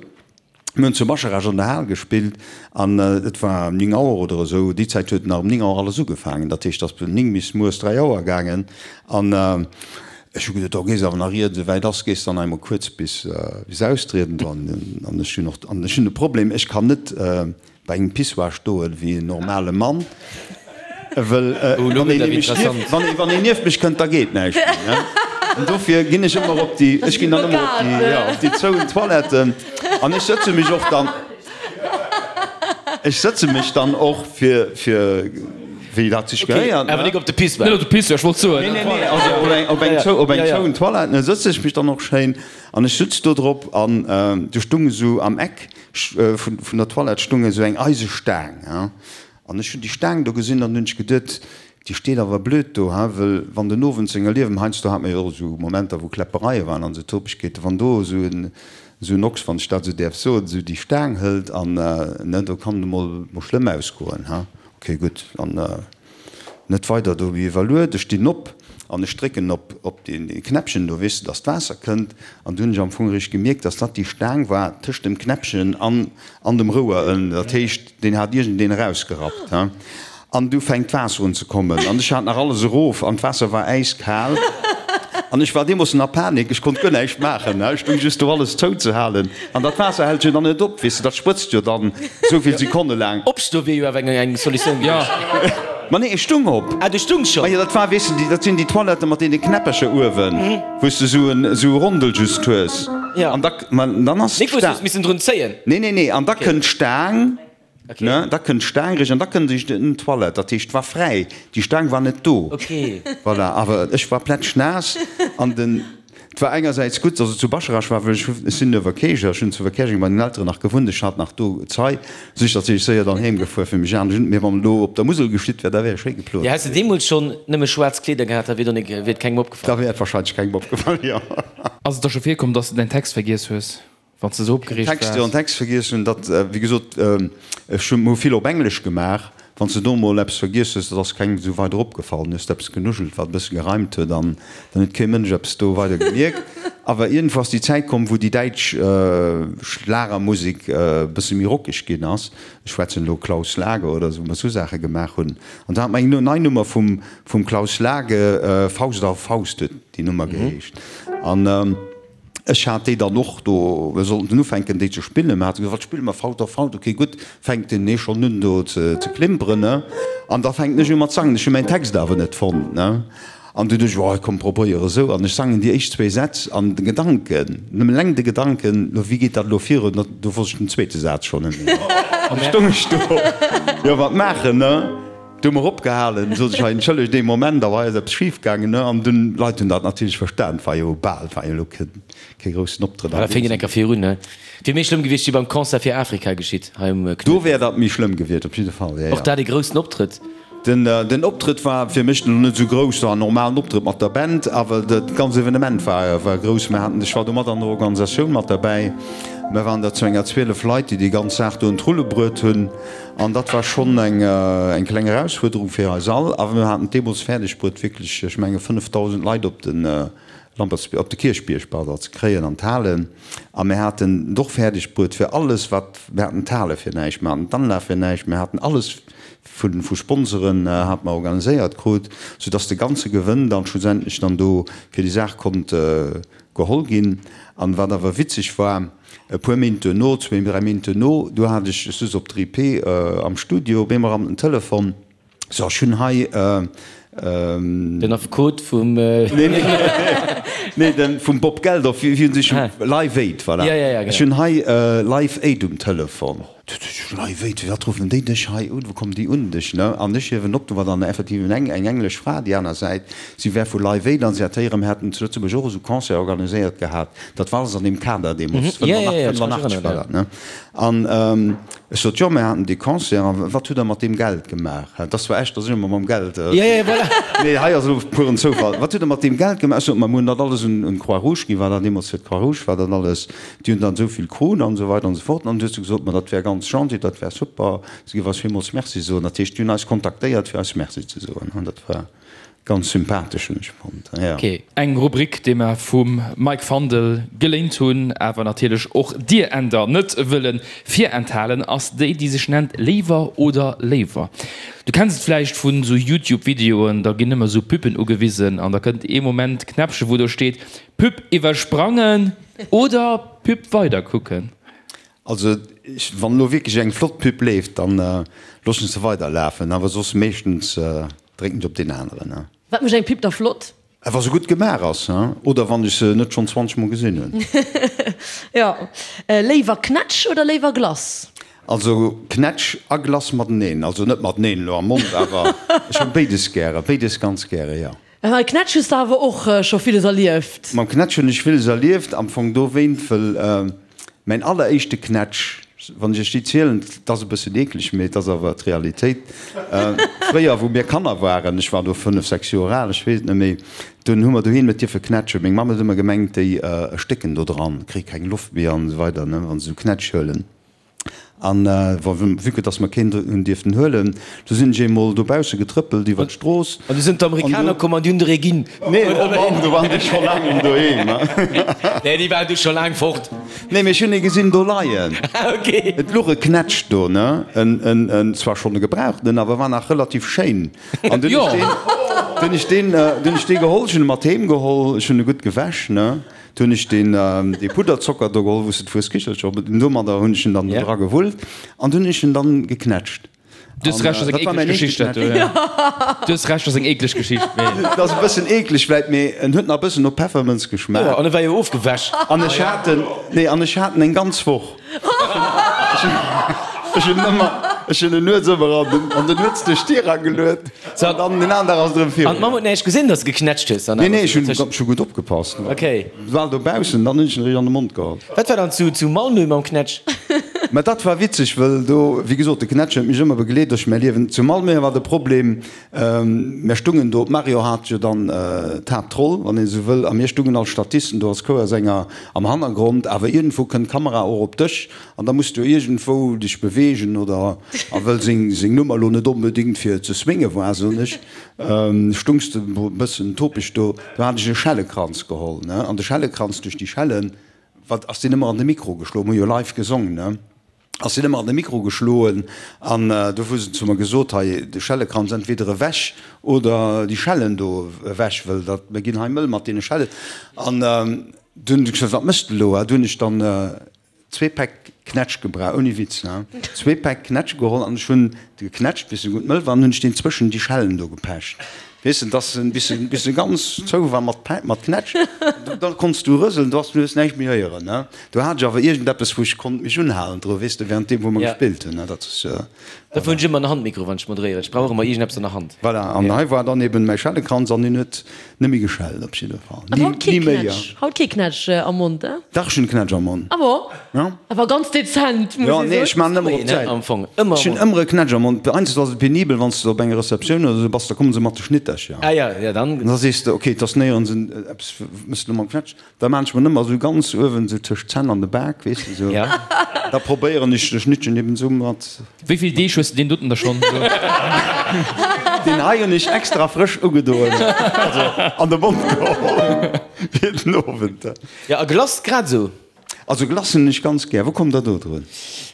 mir hunn zu Bascharage an der Hal gespillt an et war 9 Auer oder esou. Déi Zäit huet nach um 9 Auer alles ugefaangen. Dat heescht, et ass vun 9 bis mueres 3 Auer gaangen an Ech hu geduet, do gees awer nach ier et esouwäit ass, gees dann einmol kuerz bis bis austrieden do. An ech hunn och, an ech hunn e Problem, ech kann net bei engem Pissoir stoen wéi en normale Mann, wëll wann een nämlech nieft, wann ee wann een nieft mech kënnt, da geet näischt méi, ne. An dofir ginn ech ëmmer op déi, ech ginn dann ëmmer op déi, jo, op déi zouen Toiletten an ech sëtze mech och dann. Ech sëtze mech dann och fir, fir wéi dat sech gehéiert, ne? Awer nik op de Pissoir. Net op de Pissoir, ech wollt soen. Nee, nee, nee, also op eng, op eng zou, op eng zouen Toilette, ne, sëtze ech mech dann och schéin an ech sutz do drop an do stung esou am Eck vun, vun der Toilette stung esou eng Eisestaang, he. An ech hunn déi Staang do gesinn an hunn ech geduet, déi steet awer blöd do, he, wëll wann den Owend senger Liewen, heiansdo hat mer jo och esou Momenter, wou Kläppereie waren an esou Topegkeeten, wann do esou en, esou en Ochs, wann ech dat esou däerf soen, esou déi Staang hëlt an, ne, do kann et emol mol schlëmm ausgoen, he. Ok, gutt, an net weider do iwwerluet. Ech stinn op an ech drécken op op dee Knäppchen do, weess de, dass d'Waasser kënnt. An du hunn ech am Fong eréischt gemierkt, dass dat déi Staang war tëscht dem Knäppchen an an dem Rouer ënnen. Dat heescht, deen hat iergendeen erausgerappt, he. An du fänkt d'Waasser un ze kommen an ech hat nach alles erof an d'Waasser war äiskal an ech war deemoossen a Panik, ech konnt guer näischt maachen, ech stung just do alles zouzehalen an dat Waasser hält jo dann net op, weess de, dat sprëtzt jo dann esou vill Sekonne laang. Opstoe wier jo awer eng Solutioun gewiescht. Ma nee, ech stung op. Ah, du stungs schonn? Ma jo, dat war, weess de, déi, dat sinn déi Toiletten mat deene Knäppercher uewen, wou s de esou en, esou e Rondel just hues. Jo. An da, ma dann ass Nik wou s du hues missen drun zéien? Nee, nee, nee, an da kënnt d'Staang. Ne, da kënnt d'Staang eréischt an da kënnt eréischt en Toilette. Dat heescht, et war fräi, déi Staang war net do. Voilà, awer ech war plätschnaass an den, et war engersäits gutt, datt et zu Bascharage war, well ech hu, ech sinn Uewerkäercher, ech hunn zu Uewerkäerjeng bei den Elteren nach gewunnt, ech hat nach do Zai, sou ech natierlech séier dann heem gefuer fir mech anescht un. Mee wann et elo op der Musel geschitt wär, da wär ech schéi geplot. Jo, häss de deemools schonn nëmme schwaarz Kleeder gehat, da wier do nik, wier et kengem opgefall. Da wär et wahrscheinlech kengem opgefall, jo. Ass et der scho virkomm, datt s de däin Text vergiess hues? Wann s de esou opgereegt waars. Text, jo, en Text vergiess hunn, dat, wéi gesot, ech hu vill op Englesch gemaach. Wann s de do emol eppes vergiess hues, dat ass kengem esou weider opgefall. Dann hues de eppes genuschelt, wat e bësse gereimt huet, an dann huet kee Mënsch eppes do weider gemierkt. Awer iergendwou ass déi Zäit komm, wou déi däitsch Schlagermusek e bësse méi rockeg ginn ass. Ech schwätzen elo Klaus Lage oder esou, wou mer esou Saache gemaach hunn. An da hat mer eng nei Nummer vum, vum Klaus Lage, Faust auf Faust huet déi Nummer geheescht. An. Ech hat déi dann och do, mir sollten ufänken déi ze spillen, mir hate gesot, wat spille mer, Faut auf Faut, ok gutt, fänkt den ee schonn un do ze klimperen, ne, an da fänken ech u mat sangen, ech hu mäin Text awer net fonnt, ne, an dunn duecht ech, oh komm probéier esou, an ech sangen déi éischt zwéi Sätz an de Gedanken, nëmmen eleng de Gedanken, lo wéi geet dat elo virun, do wosst ech den zweete Saz schonn net méi, an du stoung ech do, jo wat maachen, ne. Du hu mer opgehalen, sot ech, hei entschëllegt ee Moment, awer hei ass eppes schif gaangen, ne? An dunn, d'Leit hunn dat natierlech verstan, et war jo bal, et war jo elo kee groussen Optrëtt an deem Sënn. Da féngt een enker virun, ne? Wier méi schlëmm gewiescht wéi beim Concert fir Afrika geschitt hei um Knuedler. Do wär dat méi schlëmm gewiescht, op jidde Fall, jo, jo. Och dat ee groussen Optrëtt. Den den Optrëtt war fir mech elo net esou grouss, war en normalen Optrëtt mat der Band, awer dat ganz Evenement war war grouss. Mir haten, ech war do mat an der Organisatioun mat derbäi, mir waren der zu enger 12 Leit, déi déi ganz Saach do un d'Rulle bruet hunn. An dat war schonn eng eng kleng Erausfuerderung fir eis all, awer mir haten et deemools fäerdeg bruet, wierklech, ech menge 5.000 Leit op de Lampertsbierg, op de Kierchbierg, pardon, ze kréien an d'Halen. A mir haten et och fäerdeg bruet, fir alles wat, mir haten d'Hale fir näischt, mir haten d'Anlag fir näischt, mir haten alles vu vu Sponsoren hate mer organiséiert krut, soudass de ganze Gewënn dann schlussendlech dann do fir déi Saach konnt geholl ginn. An wat awer witzeg war, E puer Méint duerno, zwéin, dräi Méint duerno, du hat ech, ech souz op der IP am Studio, op eemol rammt den Telefon, so, ech hunn hei. Den Affekot vum. Nee, nee, nee, den vum Bob Geldof, wéi hunn sech, Live Aid, voilà. Ja, ja, ja, genau. Ech hunn hei Live Aid um Telefon. Live Aid, firwat ruffen déi dech hei un, wou kommen déi un dech, ne? An ech hiewen op, do war dann effektiv eng eng englesch Fra déi aner Säit, si wär vu Live Aid an si hat héieren, mir hätten zu Lëtzebuerg och esou Concert organiséiert gehat, dat war alles an deem Kader deemools, 85 war dat, ne? An ech sot, jo, mir haten dee Concert, a wat hutt Der mat deem Geld gemaach? Dat ass zwar echt, dass ech ëmmer mam Geld, mee hei ass elo puren Zoufall. Wat hutt Der mat deem Geld gemaach? Ech sot, ma mir hunn dat alles un d'Croix-Rouge ginn, war dat deemools fir d'Croix-Rouge war dat alles. Déi hunn dann esou vill krut an esou weider an esou fort. An du hues du gesot, ma dat wär ganz gentil, dat wär super, se géif eis villmools Merci soen. Dat heescht, déi hunn eis kontaktéiert, fir eis Merci ze soen. An dat war ganz sympathesch, hunn ech fonnt, jo. Eng Rubrik, déi mer vum Mike Fandel geléint hunn, awer natierlech och dir Änder net wëlle virenthalen, ass déi, déi sech nennt Léiwer oder Léiwer. Du kenns et vläicht vun esou Youtube-Videoen, da ginn ëmmer esou Pubben ugewisen an da kënnt ee Moment Knäppche wou do steet, Pub iwwersprangen oder Pub weider kucken? Also wann elo wierklech eng flott Pub leeft, dann loossen ech se weider lafen, awer soss meeschtens drécken ech op deen aneren. Wat mécht eng Pub da flott? Wa se gutt gemaach ass, oder wann ech se net schonn 20 mol gesinn hunn. Jo. Léiwer Knätsch oder léiwer Glace? Also Knätsch a Glace mateneen, also net mateneen elo am Mond, awer ech hunn béides gäre, béides ganz gäre, jo. Mam Knätsch hues de awer och scho villes erlieft? Mam Knätsch hunn ech villes erlieft, am Fong dowéint, wëll mäin alleréischte Knätsch, wann ech iech déi zielen, 't ass e bëssen eekleg, mee et ass awer d'Realitéit, fréier wou mir Kanner waren, ech war do 5, 6 Joer al, ech weess et net méi, dunn hu mer doheem net dierfe knätschen. Meng Mamm huet ëmmer gemengt, déi erstécken do dran, kréie keng Loft méi an esou weider, ne, wa se esou Knätsch huelen. An vue que dass mer keen hunn dierften huelen, du sinn ech eemol dobausse getrëppelt iwwer d'Strooss. An du sinn d'Amerikaner komm an déi hunn der ee ginn. Nee, oh Mann, do waren déi scho laang doheem. Nee, déi waren du scho laang fort. Nee, mee ech hunn ee gesinn do leien. Ah, okay. Et luch e Knätsch do, ne, en, en, en zwar schonn e gebrauchtenen, awer war nach relativ schéin. An dunn ech deen, dunn ech deen, dunn ech dee geholl, ech hunn e mat heem geholl, ech hunn e gutt gewäsch, ne. Du hunn ech deen dee Pudderzocker do geholl, wou s de d'Fueskichelcher op, domadder hunn ech en dann do dra gewullt an dunn hunn ech en dann geknätscht. Du hues Recht, ass eng eekleg Geschicht dat do, jo. Du hues Recht, ass eng eekleg Geschicht, mee. Et ass e bëssen eekleg vläit, mee en huet nach e bëssen no Peffermënz geschmaacht. Jo, an e war jo ofgewäsch. An ech hat en, nee, an ech hat en eng ganz Woch. Ech hunn ëmmer, ech hunn en nuets ëmmer an den, an den nuets duerch d'Dier erageluet. An dann den aneren Dag ass et erëm virun. An d'Mamm huet näischt gesinn, dass de geknätscht hues? Nee, nee, ech hunn ech hu gutt opgepasst. Ok. War dobaussen, dann hunn ech en eréischt an de Mond geholl. Wat war dann zu zu Malmö mam Knätsch? Mä dat war witzeg, wëll do, wéi gesot, de Knätsch huet mech ëmmer begleet duerch mäi Liewen. Zu Malmö war de Problem, mär stungen do, d'Mario hat jo dann d'Haaptroll, wann een esou wëll, a mir stungen als Statisten do als Chouersänger am Hannergrond, awer iergendwou kënnt d'Kamera och op dech an da muss du iergendwou dech beweegen oder. A wëll seng seng Nummer lo net onbedéngt fir ze swinge war, soen ech, stungs de e bëssen topeg do. Do hat ech e Schellekranz geholl, ne, an de Schellekranz duerch déi Schellen, wat ass deen ëmmer an de Mikro geschloen, mir hu jo live gesong, ne, ass deen ëmmer an de Mikro geschloen. An do hu se zu mer gesot, hei de Schellekranz entweder ewech oder déi Schellen do ewech, wëll dat, mir ginn hei mëll mat deene Schellen. An dunn hu ech gesot, wat méchs de elo? Du hunn ech dann Zwee Päck Knätsch gebraucht, ouni Witz, ne? Zwee Päck Knätsch geholl an ech hunn de geknätscht, bis e gutt mëll war, an hunn ech deen zwëschen déi Schellen do gepecht. Weess de, dass en bis en bis en ganz zou war mat Pä mat Knätsch, da konns du rëselen, du has du hues näischt méi héieren, ne. Do hat ech awer iergendeppes, wou ech konnt mech unhalen dru, weess de, während deem wou mer gespillt hunn, ne, dat ass. Dofir hunn ech ëmmer en Handmikro, wann ech moderéieren. Ech brauch och ëmmer iergendeppes an der Hand. Voilà, an hei war dann eben mäi Schellekranz an deen huet net méi geschellt op jidde Fall. An haut kee Knätsch, haut kee Knätsch am Mond, eh? Dach, ech hunn Knätsch am Mond. Ah bon? Ja. Awer ganz dezent, muss Jo, ee nee, soen. ech maan ëmmer op d'Säit. Am Fong ëmmer Ech hunn ëmmer e Knätsch am Mond. Heiansdo ass et penibel, wann s de op enger Receptioun oder esou bass, da komme se mat de Schnittercher. Ah ja, ja dann. An da sees de, okay, et ass néierens en eppes, mëss de lo mam Knätsch. Da maan ech mer ëmmer esou ganz uewen, esou tëscht d'Zänn an de Bak, weess de, esou. Ja. Da probéieren ech de Schnittchen eben esou mat. Wéi vill Deeg hues de deen doten da schonn? Deen hei hunn ech extra frësch ugedoen, also an de Mond geholl fir den Owend. Ja, a Glace grad esou. Also Glace hunn ech ganz gär. Wou kommt der do drun?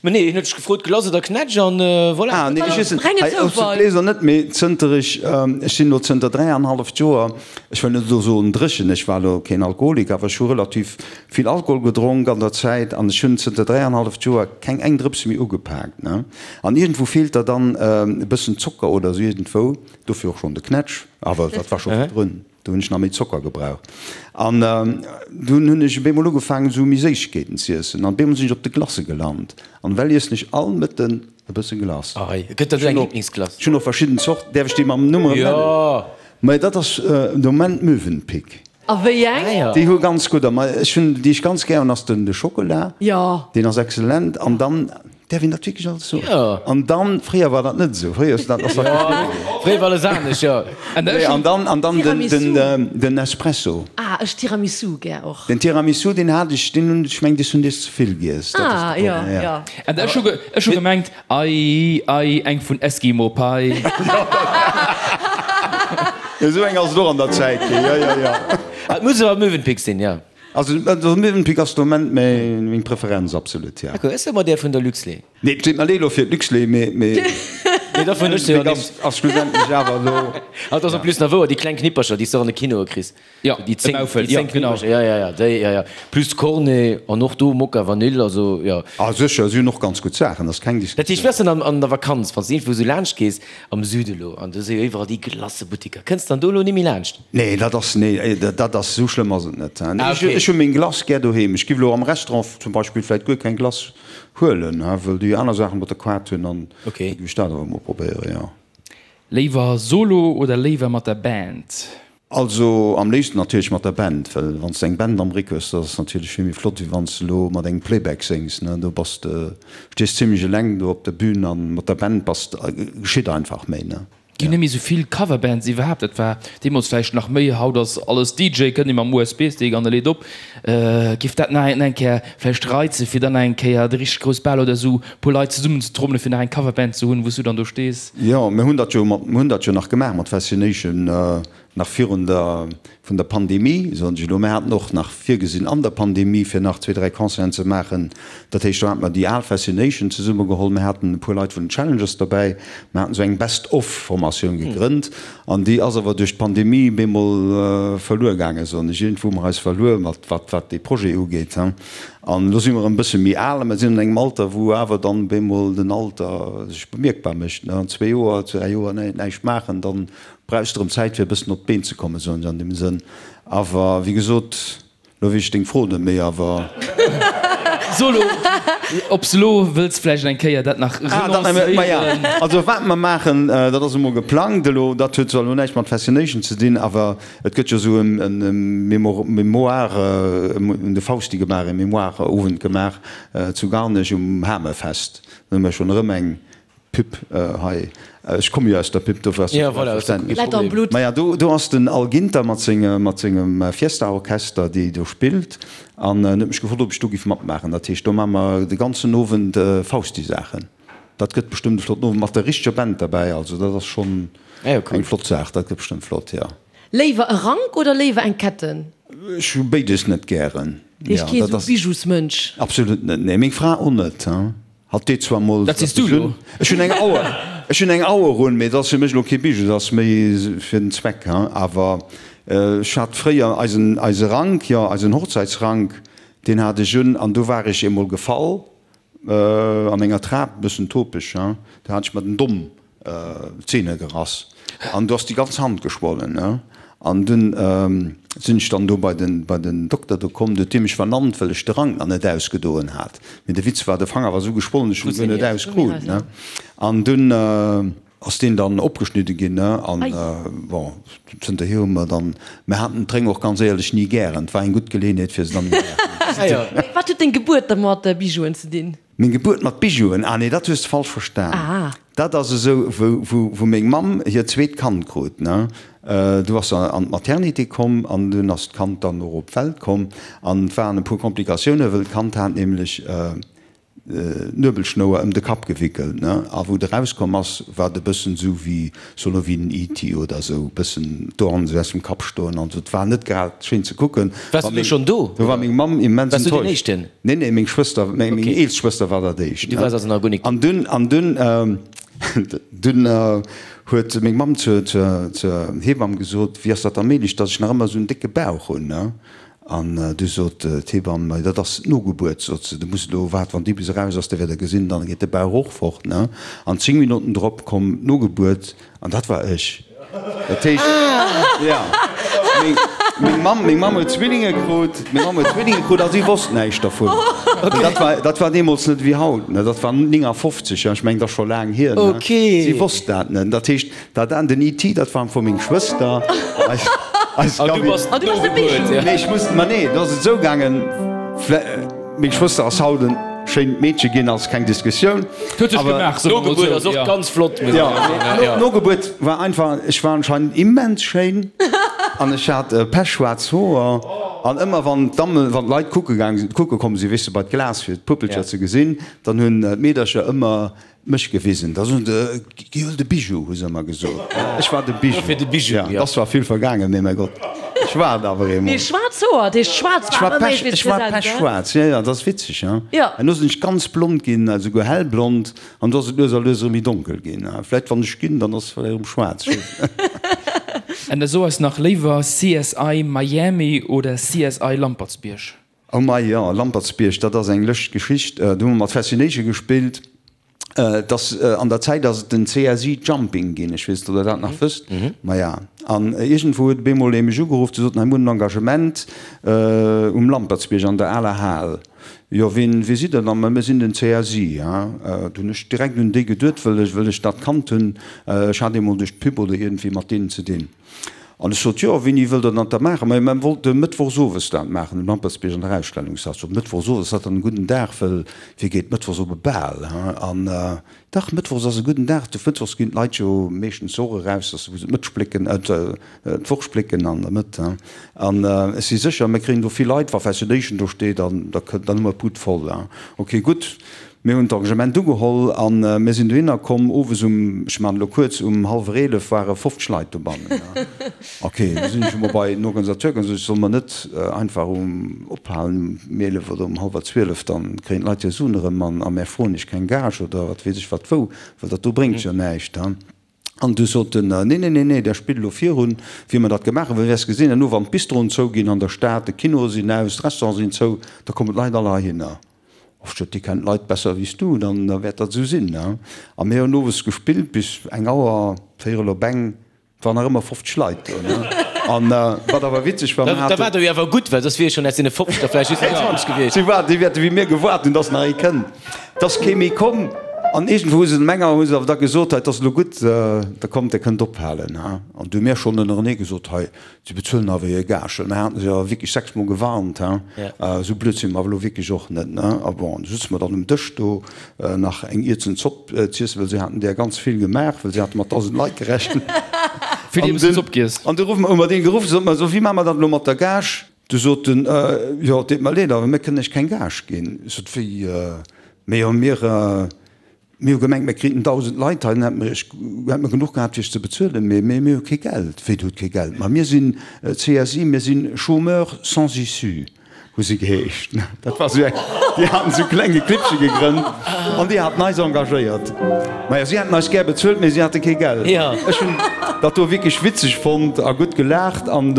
Ma nee, hien huet dech gefrot, Glace oder Knätsch an voilà. Ah nee, ech iessen, Renge hei, Zoufall. d'Gläser net, mee zënter ech, ech sinn elo zënter dräianhalleft Joer, ech wëll net elo soen dréchen, ech war elo keen Alkoholiker, awer ech hu relativ vill Alkohol gedronk an der Zäit an ech hunn zënter dräianhalleft Joer keng eng Drëps méi ugepaakt, ne. An iergendwou feelt der dann e bëssen Zocker oder esou iergendwou, dofir och schonn de Knätsch, awer dat war scho virdrun. Do hunn ech nach méi Zocker gebraucht. An dunn hunn ech op eemol ugefaangen, esou méi Séissegkeeten z'iessen. An op eemol sinn ech op de Glacë gelant. An ewell iessen ech all Mëtten e bësse Glace. Ei, gëtt dat elo eng Liblingsglace? Ech hunn och verschidden Zorten. Däerf ech déi mam Numm erëm nennen? Jo! Mä dat ass de Moment Mövenpick. A wéi eng? Ah jo. Déi hu ganz gudder. Mä ech hunn, déi ech ganz gär hunn, ass den de Schockela. Jo. Deen ass excellent. An dann Däerf een dat wierklech alles soen? Jo. An dann, fréier war dat net esou, fréier ass dat, ass dat Jo, fréier war alles anescht, jo. Nee, an dann, an dann den, Tiramisu. den, den Espresso. Ah, ech Tiramisu gär och. Den Tiramisu, deen hat ech, deen hunn, ech meng, dech hunn dech ze vill giess, dat ass Ah, de jo, Problem, ja. jo. An ech hu, ech hu gemengt, Ei, ei, eng vun Eskimo Pie. Jo, esou eng ass et och an der Zäit ginn, jo, jo, jo. Ah, et muss awer Mövenpick sinn, jo. Also de Mövenpick ass de Moment meng Preferenz, absolut, ja. D'accord, ech soe mer där vun der Luxlait. Nee, et deet mer leed elo fir d'Luxlait, mee Nee, dervun ech se jo Mövenpick ass ass schlussendlech awer elo. Ah, et ass en plus nach wouer, déi kleng Knippercher, déi s de och an de Kinoe kriss. Jo, déi de 10, Maufel, déi jo, 10 genau. Knippercher, ja, ja, ja, déi, ja, ja. Plus Cornet an och do Mokka Vanille, also jo. Ah sécher, si hunn och ganz gutt Saachen, ass keng Dat heescht, Diskussioun. wéi ass dann an der Vakanz, wann s de iergendwou esou laanscht gees, am Süde elo, an do si jo iwwerall déi Glacëbuttiker, kënns de dann do elo ni méi laanscht? Nee, dat ass, nee, dat ass, esou schlëmm ass et net. Ah, okay. Ech hu meng Glace gär doheem. Ech giff elo am Restaurant zum Beispill vläit guer keng Glace huelen, well déi aner Saachen mat der Quart hunn an da Okay. giff ech dat awer emol probéieren, jo. Léiwer solo oder léiwer mat der Band? Also am léifsten natierlech mat der Band, well wann s de eng Band am Réck hues, dat ass natierlech vill méi flott, wéi wann s de elo mat engem Playback séngs, ne. Do bass de, stees zimmlech eleng do op der Bühn an mat der Band bass de, geschitt einfach méi, ne. Ginn net méi sou vill Coverbands iwwerhaapt, dat war deemools vläicht nach méi, haut ass alles DJ, kënnt ee mam USB-Stick an e leet op. Giff dat nach eng Kéier vläicht reizen, fir dann nach eng Kéier de richteg grouss Bal oder sou puer Leit zesummen ze trommelen, fir nach eng Coverband ze hunn, wou s du dann do stees? Jo, mir hunn dat jo mat, mir hunn dat jo nach gemaach mat Fascination, nach virun der, vun der Pandemie, soen ech elo. Mir haten och nach virgesinn an der Pandemie, fir nach zwee, dräi Concerten ze maachen. Dat heescht, do hate mer déi al Fascination zesummegeholl, mir haten e puer Leit vun den Challengers derbäi, mir haten esou eng Best-of-Formatioun gegrënnt an déi ass awer duerch d'Pandemie bemol verluer gaangen, soen ech. Iergendwou hu mer eis verluer, mat wat, wat dee Projet ugeet. An elo si mer erëm e bësse méi al a mer sinn an engem Alter, wou awer dann bemol den Alter sech bemierkbar mécht. An zwee Joer, dräi Joer näischt maachen, dann Brauchs de rëm Zäit fir e bëssen op d'Been ze kommen, soen ech an deem Sënn. Awer wéi gesot, lo weess ech deng Fro net méi, awer. So lo, ob s lo wëlls vläicht eng Kéier dat nach Ah, dat nach, ma ja. renoncéieren. Also wat mer maachen, dat ass emol geplangt elo, dat huet zwar elo näischt mat Fascination ze dinn, awer et gëtt jo esou en Mémoire, un de Fausti gemaach, e Mémoire-Owend gemaach zu Garnech um Hamefest. Do hu mer schonn erëm eng Pub hei, ech komme jo aus der Pub, dofir ass dat vläicht verständlech. Maja, do ass den Al Ginter mat sengem Fiesta-Orchester, déi do spillt, an en huet mech gefrot, ob ech do giff matmaachen. Dat heescht, do maache mer de ganzen Owend Fausti-Saachen. Dat gëtt bestëmmt e flotten Owend, mat der richteger Band derbäi. Also dat ass schonn eng flott Saach, dat gëtt bestëmmt flott, jo. Léiwer e Rank oder léiwer eng Ketten? Ech hu béides net gären. Heescht kee sou Bijousmënsch? Absolut net, nee. Meng Fra och net. Hatt deet zwar mol Dat sees du elo. Ech hunn eng Auer, ech hunn eng Auer un, mee dat ass fir mech elo kee Bijou, dat ass méi fir den Zweck, hein. Awer ech hat fréier eisen, eise Rank, jo, eisen Hochzäitsrank, deen hat ech un an do war ech eemol gefall an enger Trap, e bëssen topeg, hein, do hat ech mer den Domm d'Zeene gerass. An do ass déi ganz Hand geschwollen, ne. An dunn sinn ech dann do bei den, bei den Dokter do komm, du huet dee mech vernannt, well ech de Rank nach net ausgedoen hat. Mee de Witz war, de Fanger war esou geschwollen, ech hunn e guer net auskrut, ne. An dunn ass deen dann opgeschnidde ginn, ne. An bon, zënterhier hu mer dann, mer haten d'Réng och ganz éierlech ni gären, et war eng gutt Geleeënheet fir se dann net méi gären ze hunn. Wat huet deng Gebuert da mat Bijouen ze dinn? Meng Gebuert mat Bijouen? Ah nee, dat hues de falsch verstan. Dat ass esou, wou meng Mamm hiert zweet Kand krut, ne, du ass se an d'Maternité komm an dunn ass d'Kand dann och op d'Welt komm an et waren e puer Komplikatiounen, wëll d'Kand hat nämlech d'Nuebelschnouer ëm de Kapp gewickelt, ne, a wou et erauskomm ass, war et e bëssen esou wéi, soll elo wéi den ET oder esou, e bëssen d'Ohren esou aus dem Kapp stoen an esou. Et war net grad schéin ze kucken. Waars du do schonn do? Do war meng Mamm immens Waars du deen enttäuscht. Éischten? Nee, nee, meng Schwëster, meng eelst Schwëster war dat éischt. Du waars also nach guer nik. An dunn, an dunn, dunn huet meng Mamm zur, zur, zur Hebamm gesot, Wéi ass dat da méiglech, datt ech nach ëmmer esou en décke Bauch hunn, ne? An du sot d'Hebamm, Ma dat ass d'Nogebuert, sot se, du muss elo waarden, wann déi bis eraus ass, da wäert Der gesinn, dann geet de Bauch och fort, ne? An 10 Minutten drop komm d'Nogebuert an dat war ech. Dat heescht, jo, meng Mamm, meng Mamm huet Zwillinge krut, meng Mamm huet Zwillinge krut a si wosst näischt dervun. Dat war, dat war deemools net ewéi haut, ne? Dat war 59, jo, ech mengen, dat ass scho laang hier, ne? Si wosst dat net. Dat heescht, Dat an den ET, dat war am Fong meng Schwëster. Eis, eis An du Gabi. bass An du bass de d'Nogebuert, Bijou. Nee, ech muss, ma nee, do ass et esou gaangen, vlä, meng Schwëster ass haut en schéint Meedche ginn, ass keng Diskussioun. Huet sech Awer, gemaach, soe mer mol D'Nogebuert esou, ass och jo. ganz flott, muss ja, ech soen, nee, ja. d'Nogebuert war einfach, ech war anscheinend immens schéin an ech hat pechschwaarz Hoer an ëmmer wann d'Damme, wann d'Leit kucke gaang sinn, kucke komm sinn, weess de, bei d'Glas fir d'Puppelcher Ja. ze gesinn, dann hunn d'Meedercher ëmmer Mech gewisen. Da soen se, Gi huel de Bijou, hu se ëmmer gesot. Ech war de Bijou. Dofir de Bijou, Ja, et ass zwar vill vergaangen, mee mäi Gott, ech war et awer eemol. Mee schwaarz Hoer, dat heescht schwaarz Ech war war ëmmer pech, méi ech war präsent, gell? pechschwaarz, jo, jo, dat ass witzeg, ja. Jo. Herno sinn ech ganz blond ginn, esouguer hellblond, an du ass et lues a lues erëm méi donkel ginn. Vläicht wann ech ginn, dann ass et vläicht erëm schwaarz, ech weess et net. An da so eis nach léiwer, CSI Miami oder CSI Lampertsbierg? Oh mei, jo, Lampertsbierg, dat ass eng lëscht Geschicht. Do hu mer mat Fascination gespillt. Et ass, an der Zäit ass et den CSI Jumping ginn, ech weess net, ob Der dat nach wësst. Maja, an iergendwou huet op eemol ee mech ugeruff, de sot, Hei, mir hunn en Engagement um Lampertsbierg an der aler Hal. Jo, wien, wie sidd Der dann? Ma mir sinn den CSI, ha. Do hunn ech direkt un déi geduet, wëll ech, wëll ech dat kannt hunn. Ech hat eemol duerch d'Pub oder iergendwéi mat deenen ze dinn. An ech sot, Jo, wéini wëllt Der dat da maachen? Majo, mer wollte mëttwochs owes dat maachen, um Lampertsbierg an der Ausstellungshal. Ech sot, Mëttwochs owes, ass dat dann e gudden Dag? Wëll wie geet mëttwochs op e Bal, he? An dach, mëttwochs ass e gudden Dag, de mëttwochs ginn d'Leit jo meeschtens och eraus, dass wou se d'Mëtt splécken, d'Woch splécken an der Mëtt, he? An ech si sécher, mir kréien do vill Leit, wa Fascination do steet, an da kënnt, dann hu mer d'Bud voll, he? Ok, gutt. Mir hunn d'Engagement ugeholl a mir sinn dohinner komm. Owes um, ech maachen elo kuerz, um hallwer 11 ware 50 Leit dobannen. Ok, du sinn ech emol bei den Organisateur gaangen, sot ech, solle mer net einfach um ophalen um 11 oder um hallwer 12, dann kréien d'Leit hir Suen erëm an a mär froen iech keng Gage oder wat weess ech wat wou, well dat do bréngt jo näischt. An du sot en, Nee, nee, nee, nee, der spillt elo virun, wéi mer dat gemaach hunn, well wäers gesinn, herno wann d'Bistroen zouginn an der Stad, de Kinoe sinn aus, d'Restaurante sinn zou, da kommen d'Leit all heihinner. Och sot, Dir kennt d'Leit besser wéi s du, dann wäert dat esou sinn. A mir hunn owes gespillt bis eng Auer, véierel op eng. Et waren nach ëmmer 50 Leit do, ne? An wat awer witzeg war, mir Da haten. war der jo awer gutt, well soss wier jo schonn aus deene 50 der vläicht just nach 20 gewiescht. Si waarden, déi wäerte wéi mir gewaart hunn, dass nach ee kënnt. Et ass kee méi komm. An iergendwou hu se dem enger hu se awer da gesot, hei, et ass elo gutt, da kommt, der kënnt ophalen, ha. An du hu mir schonn ënnerenee gesot, hei, Si bezuelen awer hir Gage. Well mir haten se jo wierklech sechsmol gewarnt, hein. Esou blöd si mer awer elo wierklech och net, ne. A bon, du sutze mer dann um Dësch do, nach eng Ierzen Zopp z'iessen, well si haten där ganz vill gemaach, well si hate mat 1.000 Leit gerechent. Vill Ierzen Zopp giess. An du ruffe mer, hu mer dee geruff, sot mer esou, Wéi maache mer dat elo mat der Gage? Du sot en, Jo, et deet mer leed, awer mir kënnen iech keng Gage ginn. Ech sot, Wéi? Mee jo, mir. Mir hu gemengt, mir kriten 1.000 Leit hei, dann hätte mer iech, hätte mer genuch gehat fir iech ze bezuelen, mee mir hu kee Geld. Wéi, dir hutt kee Geld? Ma mir sinn CSI, mir sinn Chômeurs sans issue, hu si geheescht. Dat war esou eng, déi haten esou klenge Clibbche gegrënnt an déi haten eis engagéiert. Maja, si hätten eis gär bezuelt, mee si hate kee Geld. Ech hunn dat do wierklech witzeg fonnt a gutt gelaacht an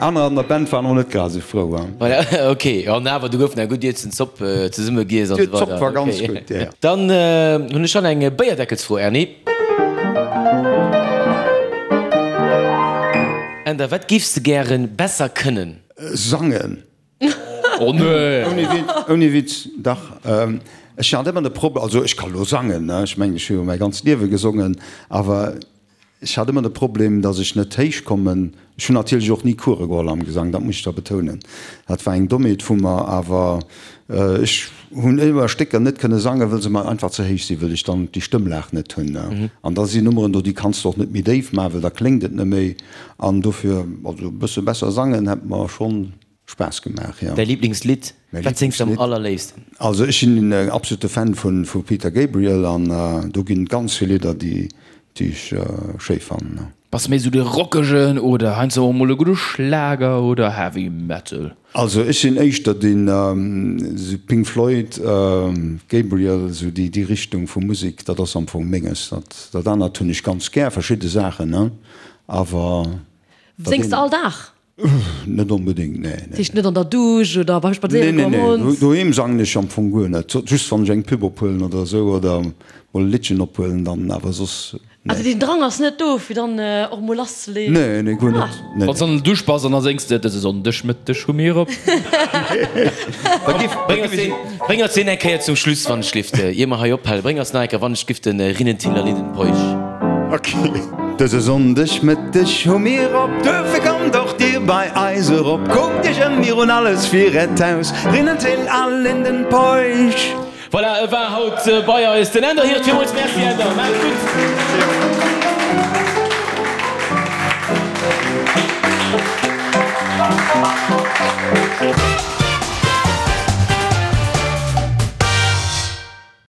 Aner an der Band waren och net grad esou frou. Voilà, ok. An awer, do gouf nach gutt Ierzen Zopp zesumme giess an esou weider. D'Zopp war ganz gutt, jo. Dann hunn ech schon eng Béierdeckelsfro, Erny. Änder, wat géifs de gären besser kënnen? Sangen. Oh nee! Ouni Witz, ouni Witz, dach. Ech hat ëmmer de Problem, also ech ka lo sangen, ne, ech mengen ech hu jo mäi ganzt Liewe gesongen, awer ech hat ëmmer de Problem, datt ech net héich kommen. Ech hunn natierlech och ni Coure geholl am Gesang, dat muss ech da betounen. Dat war eng Dommheet vu mer, awer ech hunn ëmmer Stécker net kënne sangen, wëll se mer einfach ze héich sinn, wëll ech dann déi Stëmmlag net hunn. An da sinn Nummeren do, déi kanns de och net méi déif maachen, well da kléngt et net méi. An dofir, also e bësse besser sangen hätt mer schonn Spaass gemaach, jo. Däi Liblingslidd? Wat séngs de am allerléifsten? Also ech sinn en absolute Fan vu Peter Gabriel an do ginn et ganz vill Lidder déi ech schéi fannen. Bass méi sou de rockegen oder heiansdo och mol e gudde Schlager oder Heavy Metal? Also ech sinn éischter den sou Pink Floyd, Gabriel, sou déi Richtung vu Musek, dat ass am Fong menges. Dat anert hunn ech ganz gär, verschidde Saachen, ne, awer dat Séngs de all Dag? Net onbedéngt, nee. Dat heescht net an der Dusch oder beim Spadséiere goen mam Hond? Nee, nee, doheem sangen ech am Fong guer net. Just wann ech eng Pub ophuelen oder esou oder mol e Liddchen ophuelen, dann awer soss, nee. Also deen Drang ass net do fir dann och mol lasszeleeën? Nee, nee, guer net, nee. Wann s an der Dusch bass an da séngs de, Dëse Sonndegmëtteg hu mir op. Bréng eis deen eng Kéier zum Schluss, wann ech lift, ier mer hei ophalen. Bréng eis nach eng Kéier, wann ech giff, den Rinnentiller Liddenpeuch. Ok. Dëse Sonndeg Mëtteg hu mir op, duerfir kommt och dir bei eis erop. Kuckt iech ëm, mir hunn alles fir äert Haus, Rinnentill a Lindenpeuch. Voilà, e war haut bei eis, den Änder Hirt. Villmools Merci, Änder. Maacht et gutt.